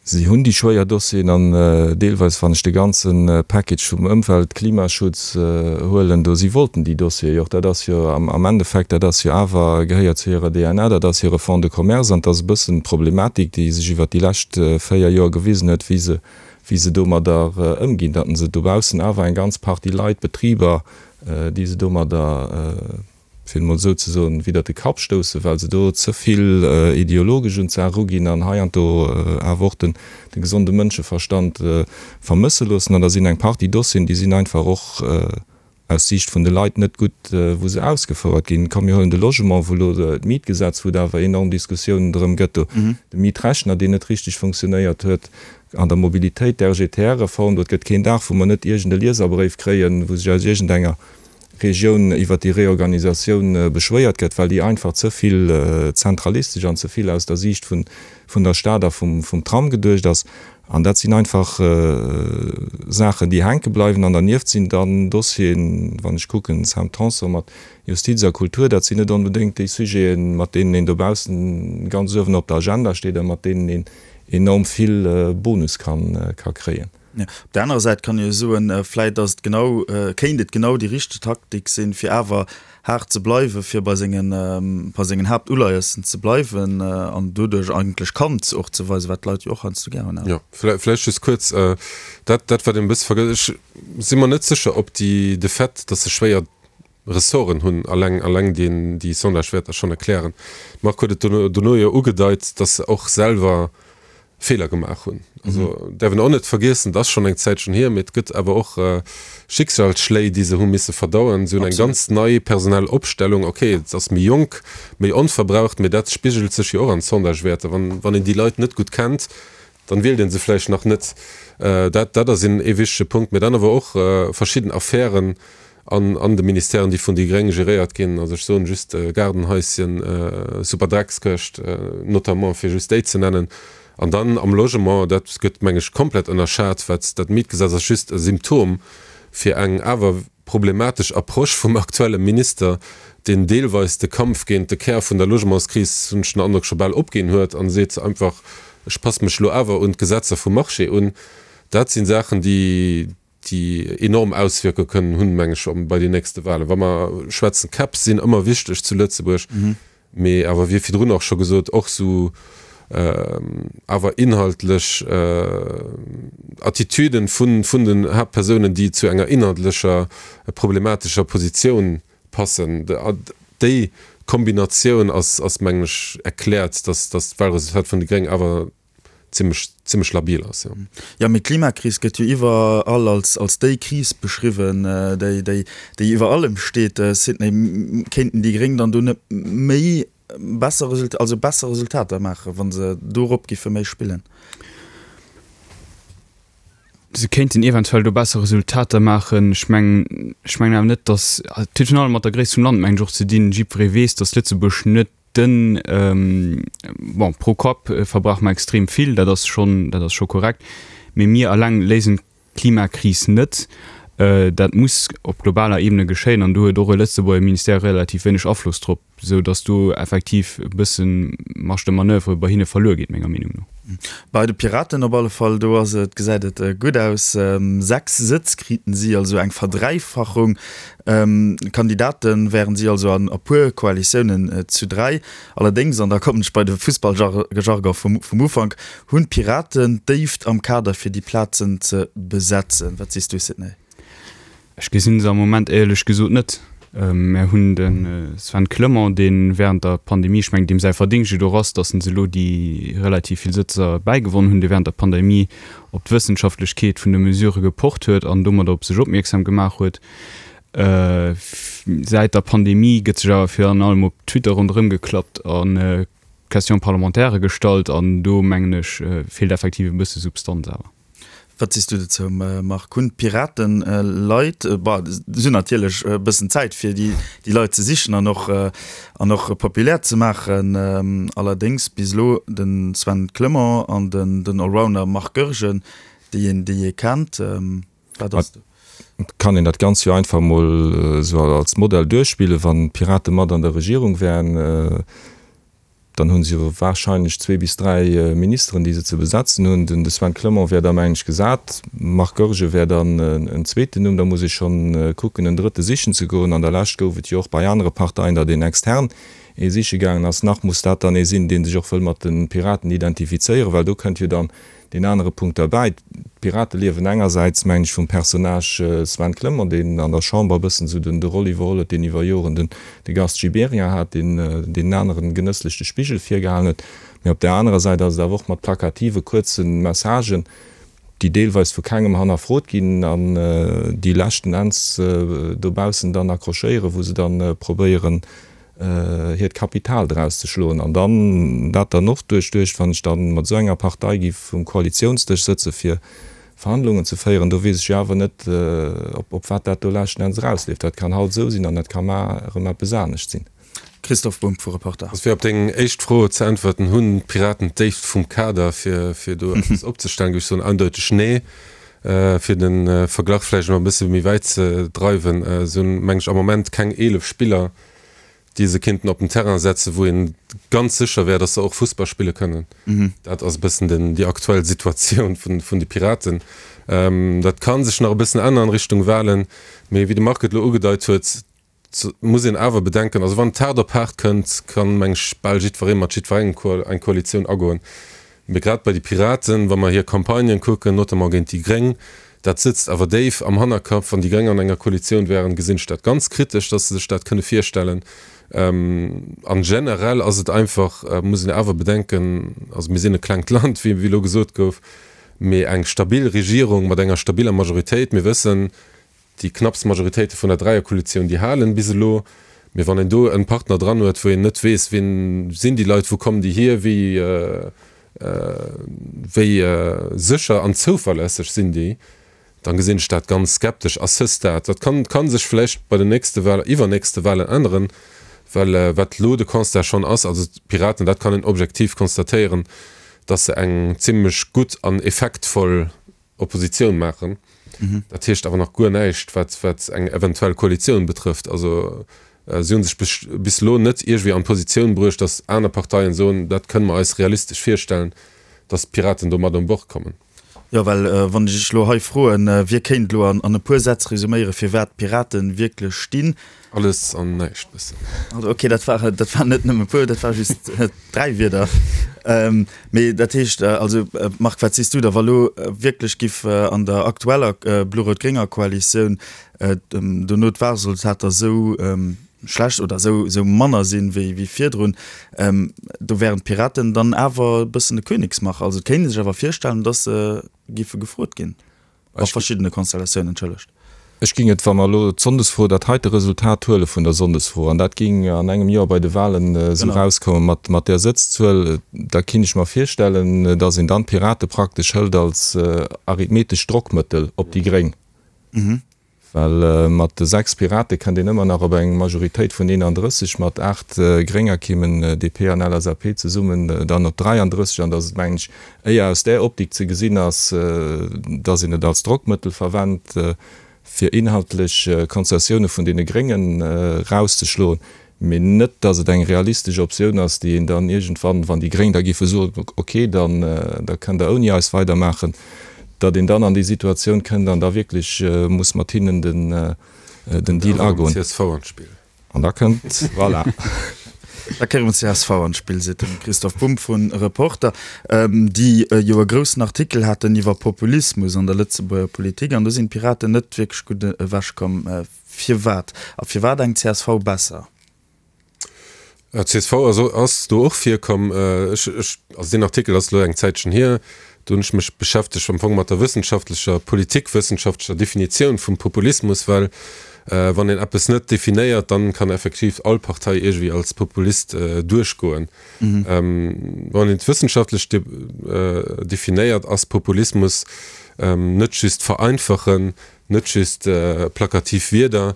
Si hunn déi schwéier Dossieren an deelweis, wann ech de ganze Package vum Ëmwelt-, Klimaschutz huelen, do, si wollten déi Dossiere jo och. Dat ass jo am Endeffekt, dat ass jo awer, gehéiert zu hirer DNA, dat ass hire Fonds de commerce an et ass e bëssen d'Problematik, déi sech iwwert déi lescht 4 Joer gewisen huet, wéi se, wéi se domadder ëmginn, datt se dobaussen awer eng ganz Partie Leit, Betriber, déi se domadder, fir et emol esou ze soen, widder de Kapp stoussen, well se do ze vill ideologesch un d'Saach eruginn an heiansdo awer och de gesonde Mënscheverstand vermësse loossen. An da sinn eng Partie Dossieren, déi sinn einfach och aus Siicht vun de Leit net gutt, wou se ausgefouert ginn. Komm mir huelen de Logement, wou elo d'Mietgesetz, wou et awer enorm Diskussiounen drëm gëtt, do de Mietrechner, deen net richteg funktionéiert huet, An der Mobilitéit, d'RGTR-Reform, do et gëtt keen Dag, wou mer net iergend e Lieserbréif kréien, wou sech aus iergendenger Regioun iwwert déi Reorganisatioun beschwéiert gëtt, well déi einfach ze vill zentralistesch an ze vill aus der Siicht vun der Stad a vum Tram geduecht ass. An dat sinn einfach Saachen, déi hänke bleiwen. An dernieft sinn dann Dossieren, wann ech kucken, Sam Tanson mat Justiz a Kultur, dat sinn net onbedéngt déi Sujeten, mat deenen een dobaussen ganz uewen op der Agenda steet a mat deenen een enorm vill Bonus kann ka kréien. Jo, op der anerer Säit kann ee jo soen, vläit ass et genau, kéint et genau déi richteg Taktik sinn, fir awer haart ze bleiwen, fir bei sengen, bei sengen Haaptuleiessen ze bleiwen an doduerch eigentlech Kant och ze weisen, wat d'Leit jo och heiansdo gär hunn. Jo, vläicht just kuerz, dat, dat wat een e bësse vergësst, ech si mer net sécher, ob déi, de Fait, datt se schwéier Ressorten hunn, alleng, alleng deen, déi Sondagewäerter schonn erklären. De Marc huet et dono, dono jo ugedeit, datt se och selwer Feeler gemaach hunn. Also däerf een och net vergiessen, et ass schonn eng Zäitchen hier, mee et gëtt awer och Schicksalsschléi, déi se hu misse verdauen. Si hunn eng ganz nei personell Opstellung. Ok, et ass méi jonk, méi onverbraucht, mee dat spigelt sech jo och an Sondagewäerter. Wann, wann een déi Leit net gutt kennt, dann wielt een se vläicht nach net. Dat, dat ass een, ee wichtege Punkt. Mee dann awer och verschidden Affären an, an de Ministèren, déi vun déi Gréng geréiert ginn. Also ech soen just Gaardenhaischen, Superdreckskëscht notamment, fir just déi ze nennen. An dann am Logement, dat gëtt, meng ech, komplett ënnerschat, wat dat Mietgesetz ass just e Symptom fir eng awer problematesch Approche vum aktuelle Minister, deen deelweis de Kampf géint de Kär vun der Logementskris, hunn ech den Androck, scho bal opginn huet a seet einfach, ech passe mech elo awer un d'Gesetzer vum Marché un. Dat si Saachen, déi, déi enorm Auswierkunge kënnen hunn, meng ech, bei den nächste Wahlen. Wa mer schwätzen, Käpp sinn ëmmer wichteg zu Lëtzebuerg, mee awer, wéi virdrun och scho gesot, och esou awer inhaltlech Attitüden vun, vun den Haaptpersounen, déi zu enger inhaltlecher problematescher Positioun passen. Déi Kombinatioun ass, ass mengen ech, erkläert, dass, dass d'Wahlresultat vun de Gréngen awer zimmlech, zimmlech labil ass, jo. Jo, mee d'Klimakris gëtt jo iwwerall als, als déi Kris beschriwwen, déi, déi, déi iwwer allem steet. Sidney, kéinten déi Gréng dann do net méi besser Resultater, also besser Resultater maachen, wa se dorop giffe méi spillen? Se kéinten eventuell do besser Resultater maachen. Ech mengen, ech mengen awer net, datt, et huet virun allem mat der Gréisst vum Land, mengen ech, och ze dinn. Jiddweree weess, datt Lëtzebuerg net Den, bon, pro Kapp verbrauche mer extrem vill, dat ass schonn, dat ass scho korrekt, mee mir alleng léisen d'Klimakris net. Dat muss op globaler Ebene geschéien an do huet och e Lëtzebuerger Ministère relativ wéineg Afloss drop, esou datt do effektiv e bësse Marge de manoeuvre bei hinne verluer geet, menger Meenung no. Bei de Piraten op alle Fall, do ass et, gesäit et gutt aus. 6 Sëtz kriten si, also eng Verdräifachung. Kandidate wären si also an e puer Koalitiounen zu 3. Allerdéngs, an da kommen ech bei de Fussballjargon vum Ufank, hunn d'Piraten d'Déift am Kader fir déi Plazen ze besetzen. Wat sees du, Sidney? Ech gesinn se am Moment éierlech gesot net. Mär hunn de Sven Clement, dee während der Pandemie, ech mengen deem säi Verdingscht et och ass, datt en se elo déi relativ vill Sëtzer bäigewonn hunn, dee während der Pandemie op d'Wëssenschaftlechkeet vun de Mesurë gepocht huet an domadder op sech opmierksam gemaach huet. Säit der Pandemie gëtt sech awer virun allem op Twitter ronderëm geklappt a Questions parlementaires gestallt an do mengen ech feelt effektiv e bësse Substanz awer. Wat sees du dozou Marc? Hunn d'Piraten Leit, bon si hunn natierlech e bëssen Zäit fir déi Leit ze sichen an och an och populär ze maachen, allerdéngs bis elo de Sven Clement an den Allrounder Marc Goergen, déi een déi ee kennt, wat ass do? Et kann een dat Ganzt jo einfach emol esou als Modell duerchspillen, wann d'Pirate mat an der Regierung wären, Dann hu se jo wahrscheinlech zwee bis dräi Ministeren, déi se ze besetzen hunn. Den de Sven Clement wär da, mengen ech, gesat. Marc Goergen wär dann en zweeten Numm. Da muss ee schonn kucken, en drëtte sichen ze goen. An der Lescht gouf et jo och bei anere Parteien, datt een extern ee siche gaangen ass. Nach muss dat dann ee sinn, dee sech och wëll mat de Piraten identifizéieren, well do kënnt jo dann Deen anere Punkt derbäi, D'Pirate liewen engersäits, mengen ech, vum Personnage Sven Clement, deen an der Chamber e bëssen esou den de Roll iwwerholl huet, deen iwwer Joren den de Gast Gibéryen hat, deen deenen aneren genësslech de Spigel virgehalen huet. Mee op där anerer Säit ass et awer och mat plakative kuerze Messagen, déi deelweis vu kengem hannerfrot ginn an déi leschten Enns dobaussen dann accrochéieren, wou se dann probéieren, hiert Kapital draus ze schloen an dann dat dann och duerchduecht, wann ech dann mat esou enger Partei giff um Koalitiounsdësch sëtze fir Verhandlungen ze féieren, do weess ech jo awer net op op wat dat do leschten Enns erausleeft. Dat kann haut esou sinn an dat ka mar erëm eppes anescht sinn. Christoph Bumb vu Reporter. Also fir op deng éischt Fro ze äntwerten, Hunn d'Piraten d'Déift vum Kader fir fir do eppes opzestellen? Géif ech soen, eindeuteg nee. Fir de Verglach vläicht nach e bësse méi wäit ze dreiwen, se hunn, meng ech, am Moment keng 11 Spiller, déi se kéinten op den Terrain setzen, wou ee ganz sécher wär, datt se och Fussball spille kënnen. Dat ass e bëssen den, déi aktuell Situatioun vun, vun de Piraten. Dat ka sech nach e bëssen änneren Richtung Wahlen, mee wéi de Marc et elo ugedeit huet, muss een awer bedenken, also wann et haart op haart kënnt, kann, meng ech, bal jiddweree mat jiddwerengem eng Koalitioun agoen. Mee grad bei de Piraten, wa mer hir Campagnen kucken, notamment géint déi Gréng, dat sëtzt awer déif am Hannerkapp. Wann déi Gréng an enger Koalitioun wären, gesinn ech dat ganz kritesch, dass se sech dat kënne virstellen. An generell ass et einfach, muss een awer bedenken, also mir sinn e klengt Land, wéi elo gesot gouf, mee eng stabil Regierung mat enger stabiller Majoritéit, mir wëssen, Déi knapps Majoritéite vun der Dräierkoalitioun, déi halen bis elo. Mee wann een do en Partner dran huet, wou een net weess, wien sinn déi Leit, wou kommen déi hier, wéi wéi sécher an zouverlässeg sinn déi, dann gesinn ech dat ganz skeptesch à ce stade. Dat kann kann sech vläicht bei den nächste Wahlen, iwwernächste Wahlen änneren, well wat elo de Constat schonn ass, also d'Piraten, dat kann een objektiv constatéieren, datt se eng zimlech gutt an effektvoll Oppositioun maachen. Dat heescht awer nach guer näischt, wat, wat eng eventuell Koalitioun betrëfft. Also si hu sech bis, bis elo net iergwéi an d'Positioun bruecht, datt aner Parteien soen, dat kënne mer eis realistesch virstellen, datt d'Piraten do mat un Bord kommen. Jo, well wann ech Iech elo hei froen, wie kéint elo an, an e puer Sätz resuméieren, fir wat d'Piraten wierklech stinn? Alles an näischt bëssen. Also okay, dat war, dat war net nëmme puer, dat war just dräi Wierder. Mee dat heescht, also Marc, wat sees du da, wa lo wierklech giff an der aktueller blo-rout-grénger Koalitioun dono d'Wahlresultater esou schlecht oder esou esou manner sinn wéi wéi virdrun, do wären d'Piraten dann awer e bëssen de Königsmacher. Also et kéint ee sech awer virstellen, datt se giffe gefrot ginn. A verschiddene Konstellatiounen, entschëllegt. Ech géing et, wa mer elo d'Sonndesfro, dat heite Resultat huele vun der Sonndesfro, an dat géing an engem Joer bei de Wahlen esou erauskomme mat, mat där Sëtzzuel, da kinnt ech mer virstellen, datt een dann d'Pirate praktesch hëlt als arithmetescht Drockmëttel op déi Gréng. Well mat de 6 Pirate kënnt een ëmmer nach op eng Majoritéit vun 31, mat 8 Grénger kéimen DP an LSAP zesummen dann op 33. An datt et, mengen ech, éier aus där Optik ze gesinn ass, datt een et als Drockmëttel verwennt. fir inhaltlech Konzessioune vun deene Gréngen erauszeschloen, mee net, datt et eng realistesch Optioun ass, déi een dann iergendwann, wann déi Gréng da géife soen, ok, dann da kënnt Der ouni eis weidermaachen, datt een dann an déi Situatioun kënnt an da wierklech muss mat hinnen den Deal agoen. An da kënnt, voilà. Da kéiere mer csv an d'Spill, seet de Christoph Bumb vu Reporter, déi jo e groussen Artikel haten iwwer Populismus an der Lëtzebuerger Politik. An do sinn d'Piraten net wierklech gutt ewechkomm. Firwat? A firwat eng csv besser? Csv ass do och virkomm. Ech, ech, also deen Artikel ass elo eng Zäitchen hier. Do hunn ech mech beschäftegt am Fong mat der wëssenschaftlecher, politikwëssenschaftlecher Definitioun vum Populismus, well wann een eppes net definéiert, dann kann effektiv all Partei iergendwéi als Populist duerchgoen. Wann een et wëssenschaftlech definéiert, ass Populismus net just vereinfachen, net just plakativ Wierder,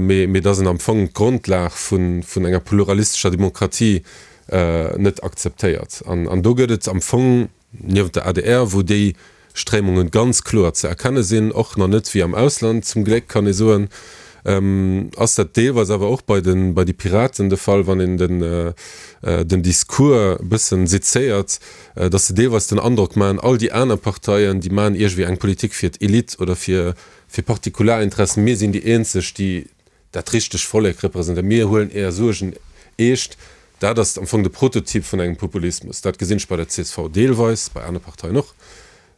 mee mee dass en am Fong d'Grondlag vun vun enger pluralistescher Demokratie net akzeptéiert. An an do gëtt et am Fong niewent der adr, wou déi Stréimunge ganz kloer ze erkenne sinn, och nach net wéi am Ausland, zum Gléck kann ee soen, ass dat deelweis awer och bei de bei de Piraten de Fall, wann een den den Discours e bëssen sezéiert, dass se deelweis den Androck maachen, all déi aner Parteien, déi maachen iergendwéi eng Politik fir d'Elite oder fir fir Partikularinteressen, mir sinn déi eenzeg, déi dat richteg Vollek representéieren, mir huelen Är Suergen eescht. Dat ass am Fong de Prototyp vun engem Populismus. Dat gesinn ech bei der csv deelweis, bei anere Parteien och,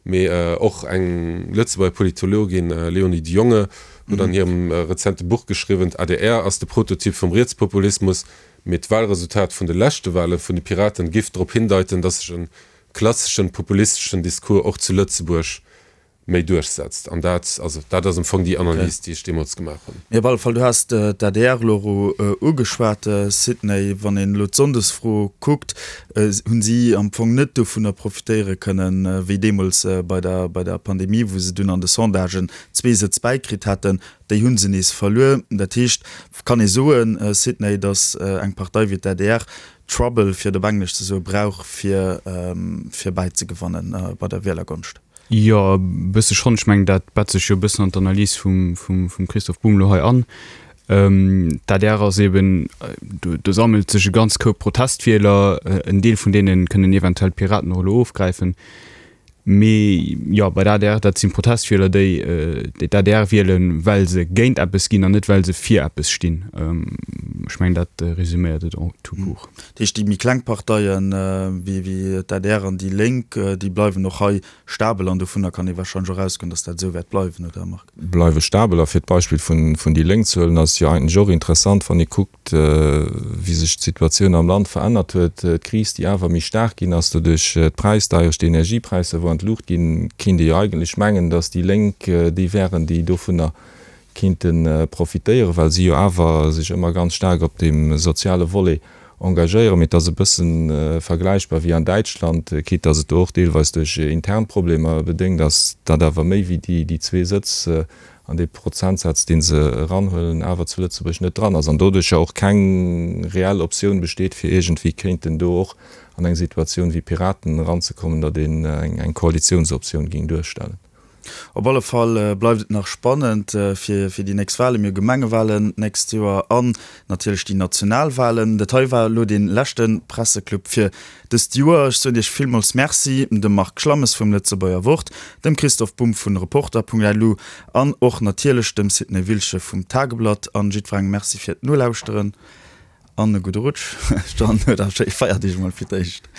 mee och eng Lëtzebuerger Politologin, Léonie de Jonge, huet an hirem rezente Buch geschriwwen, d'ADR ass de Prototyp vum Rietspopulismus, mee d'Wahlresultat vun de leschte Wahle vun de Piraten giff drop hindeiten, datt sech e klasseschen populisteschen Discours och zu Lëtzebuerg méi duerchsetzt. An dat, also dat ass am Fong déi Analys, déi ech deemools gemaach hunn. Mee op alle Fall, du has d'ADR elo ugeschwat, Sidney. Wann een elo d'Sonndesfro kuckt, hunn si am Fong net dovunner profitéiere kënnen, wéi deemools bei der, bei der Pandemie, wou se dunn an de Sondagen zwee Sëtz bäikritt haten. Déi hu se nees verluer. Dat heescht, kann ee soen, Sidney, datt eng Partei wéi d'ADR Trouble, fir et op Englesch ze soen, brauch, fir, fir bäizegewannen bei der Wielergonscht? Jo, e bësse schonn. Ech mengen, dat bett sech jo e bëssen an d'Analys vum Christoph Bumb elo hei an. D'adr ass eben, do sammelt sech e ganz Koup Protestwieler, en Deel vun deene kënnen eventuell d'Piraten och elo ofgräifen. Mee jo, bei der adr, dat si Protestwieler, déi d'ADR wielen, well se géint eppes ginn an net well se fir eppes stinn. Ech mengen, dat resuméiert et en tout court. Dat heescht, déi méi kleng Parteien, wéi d'ADR an déi Lénk, déi bleiwen och hei stabel an dovunner kann ee warscheinlech och ausgoen, datt dat esou wäert bleiwen, oder Marc? Bleiwe stabel. A fir d'Beispill vun déi Lénk ze huelen, ass et jo eigentlech och interessant, wann ee kuckt, wéi sech d'Situatioun am Land verännert huet, d'Kris, déi awer méi staark ginn ass doduerch d'Präisdeierecht, d'Energiepräisser, wou an d'Luucht ginn, kéint ee jo eigentlech mengen, datt déi Lénk déi wären, déi dovunner kéinte profitéieren, well si jo awer sech ëmmer ganz staark op deem soziale Volet engagéieren. Mee et ass e bësse vergläichbar wéi an Däitschland, quitte datt et do och deelweis duerch intern Problemer bedéngt ass, datt awer méi wéi déi zwee Sëtz an dee Prozentsaz, dee se eranhuelen, awer zu Lëtzebuerg net dran ass an doduercher och keng reell Optioun besteet, fir iergendwéi kéinten do och an eng Situatioun wéi Piraten eranzekommen, datt een eng Koalitiounsoptioun géing duerstellen. Op alle Fall bleift et nach spannend fir déi nächst Walen. Mir hu Gemengewalen d'nächst Joer an natierlech déi national Walen. Dat hei war elo dee leschte Presseclub fir dëst Joer. Ech soen Iech villmools Merci, dem Marc Schlammes vum Lëtzebuerger Wort, dem Christoph Bumb vun Reporter.lu an och natierlech dem Sidney Wilsche vum Tageblatt. An jiddwerengem Merci fir d'Nolauschteren an e gudde Rutsch. Dann huet a schéi Feierdeeg emol fir d'éischt.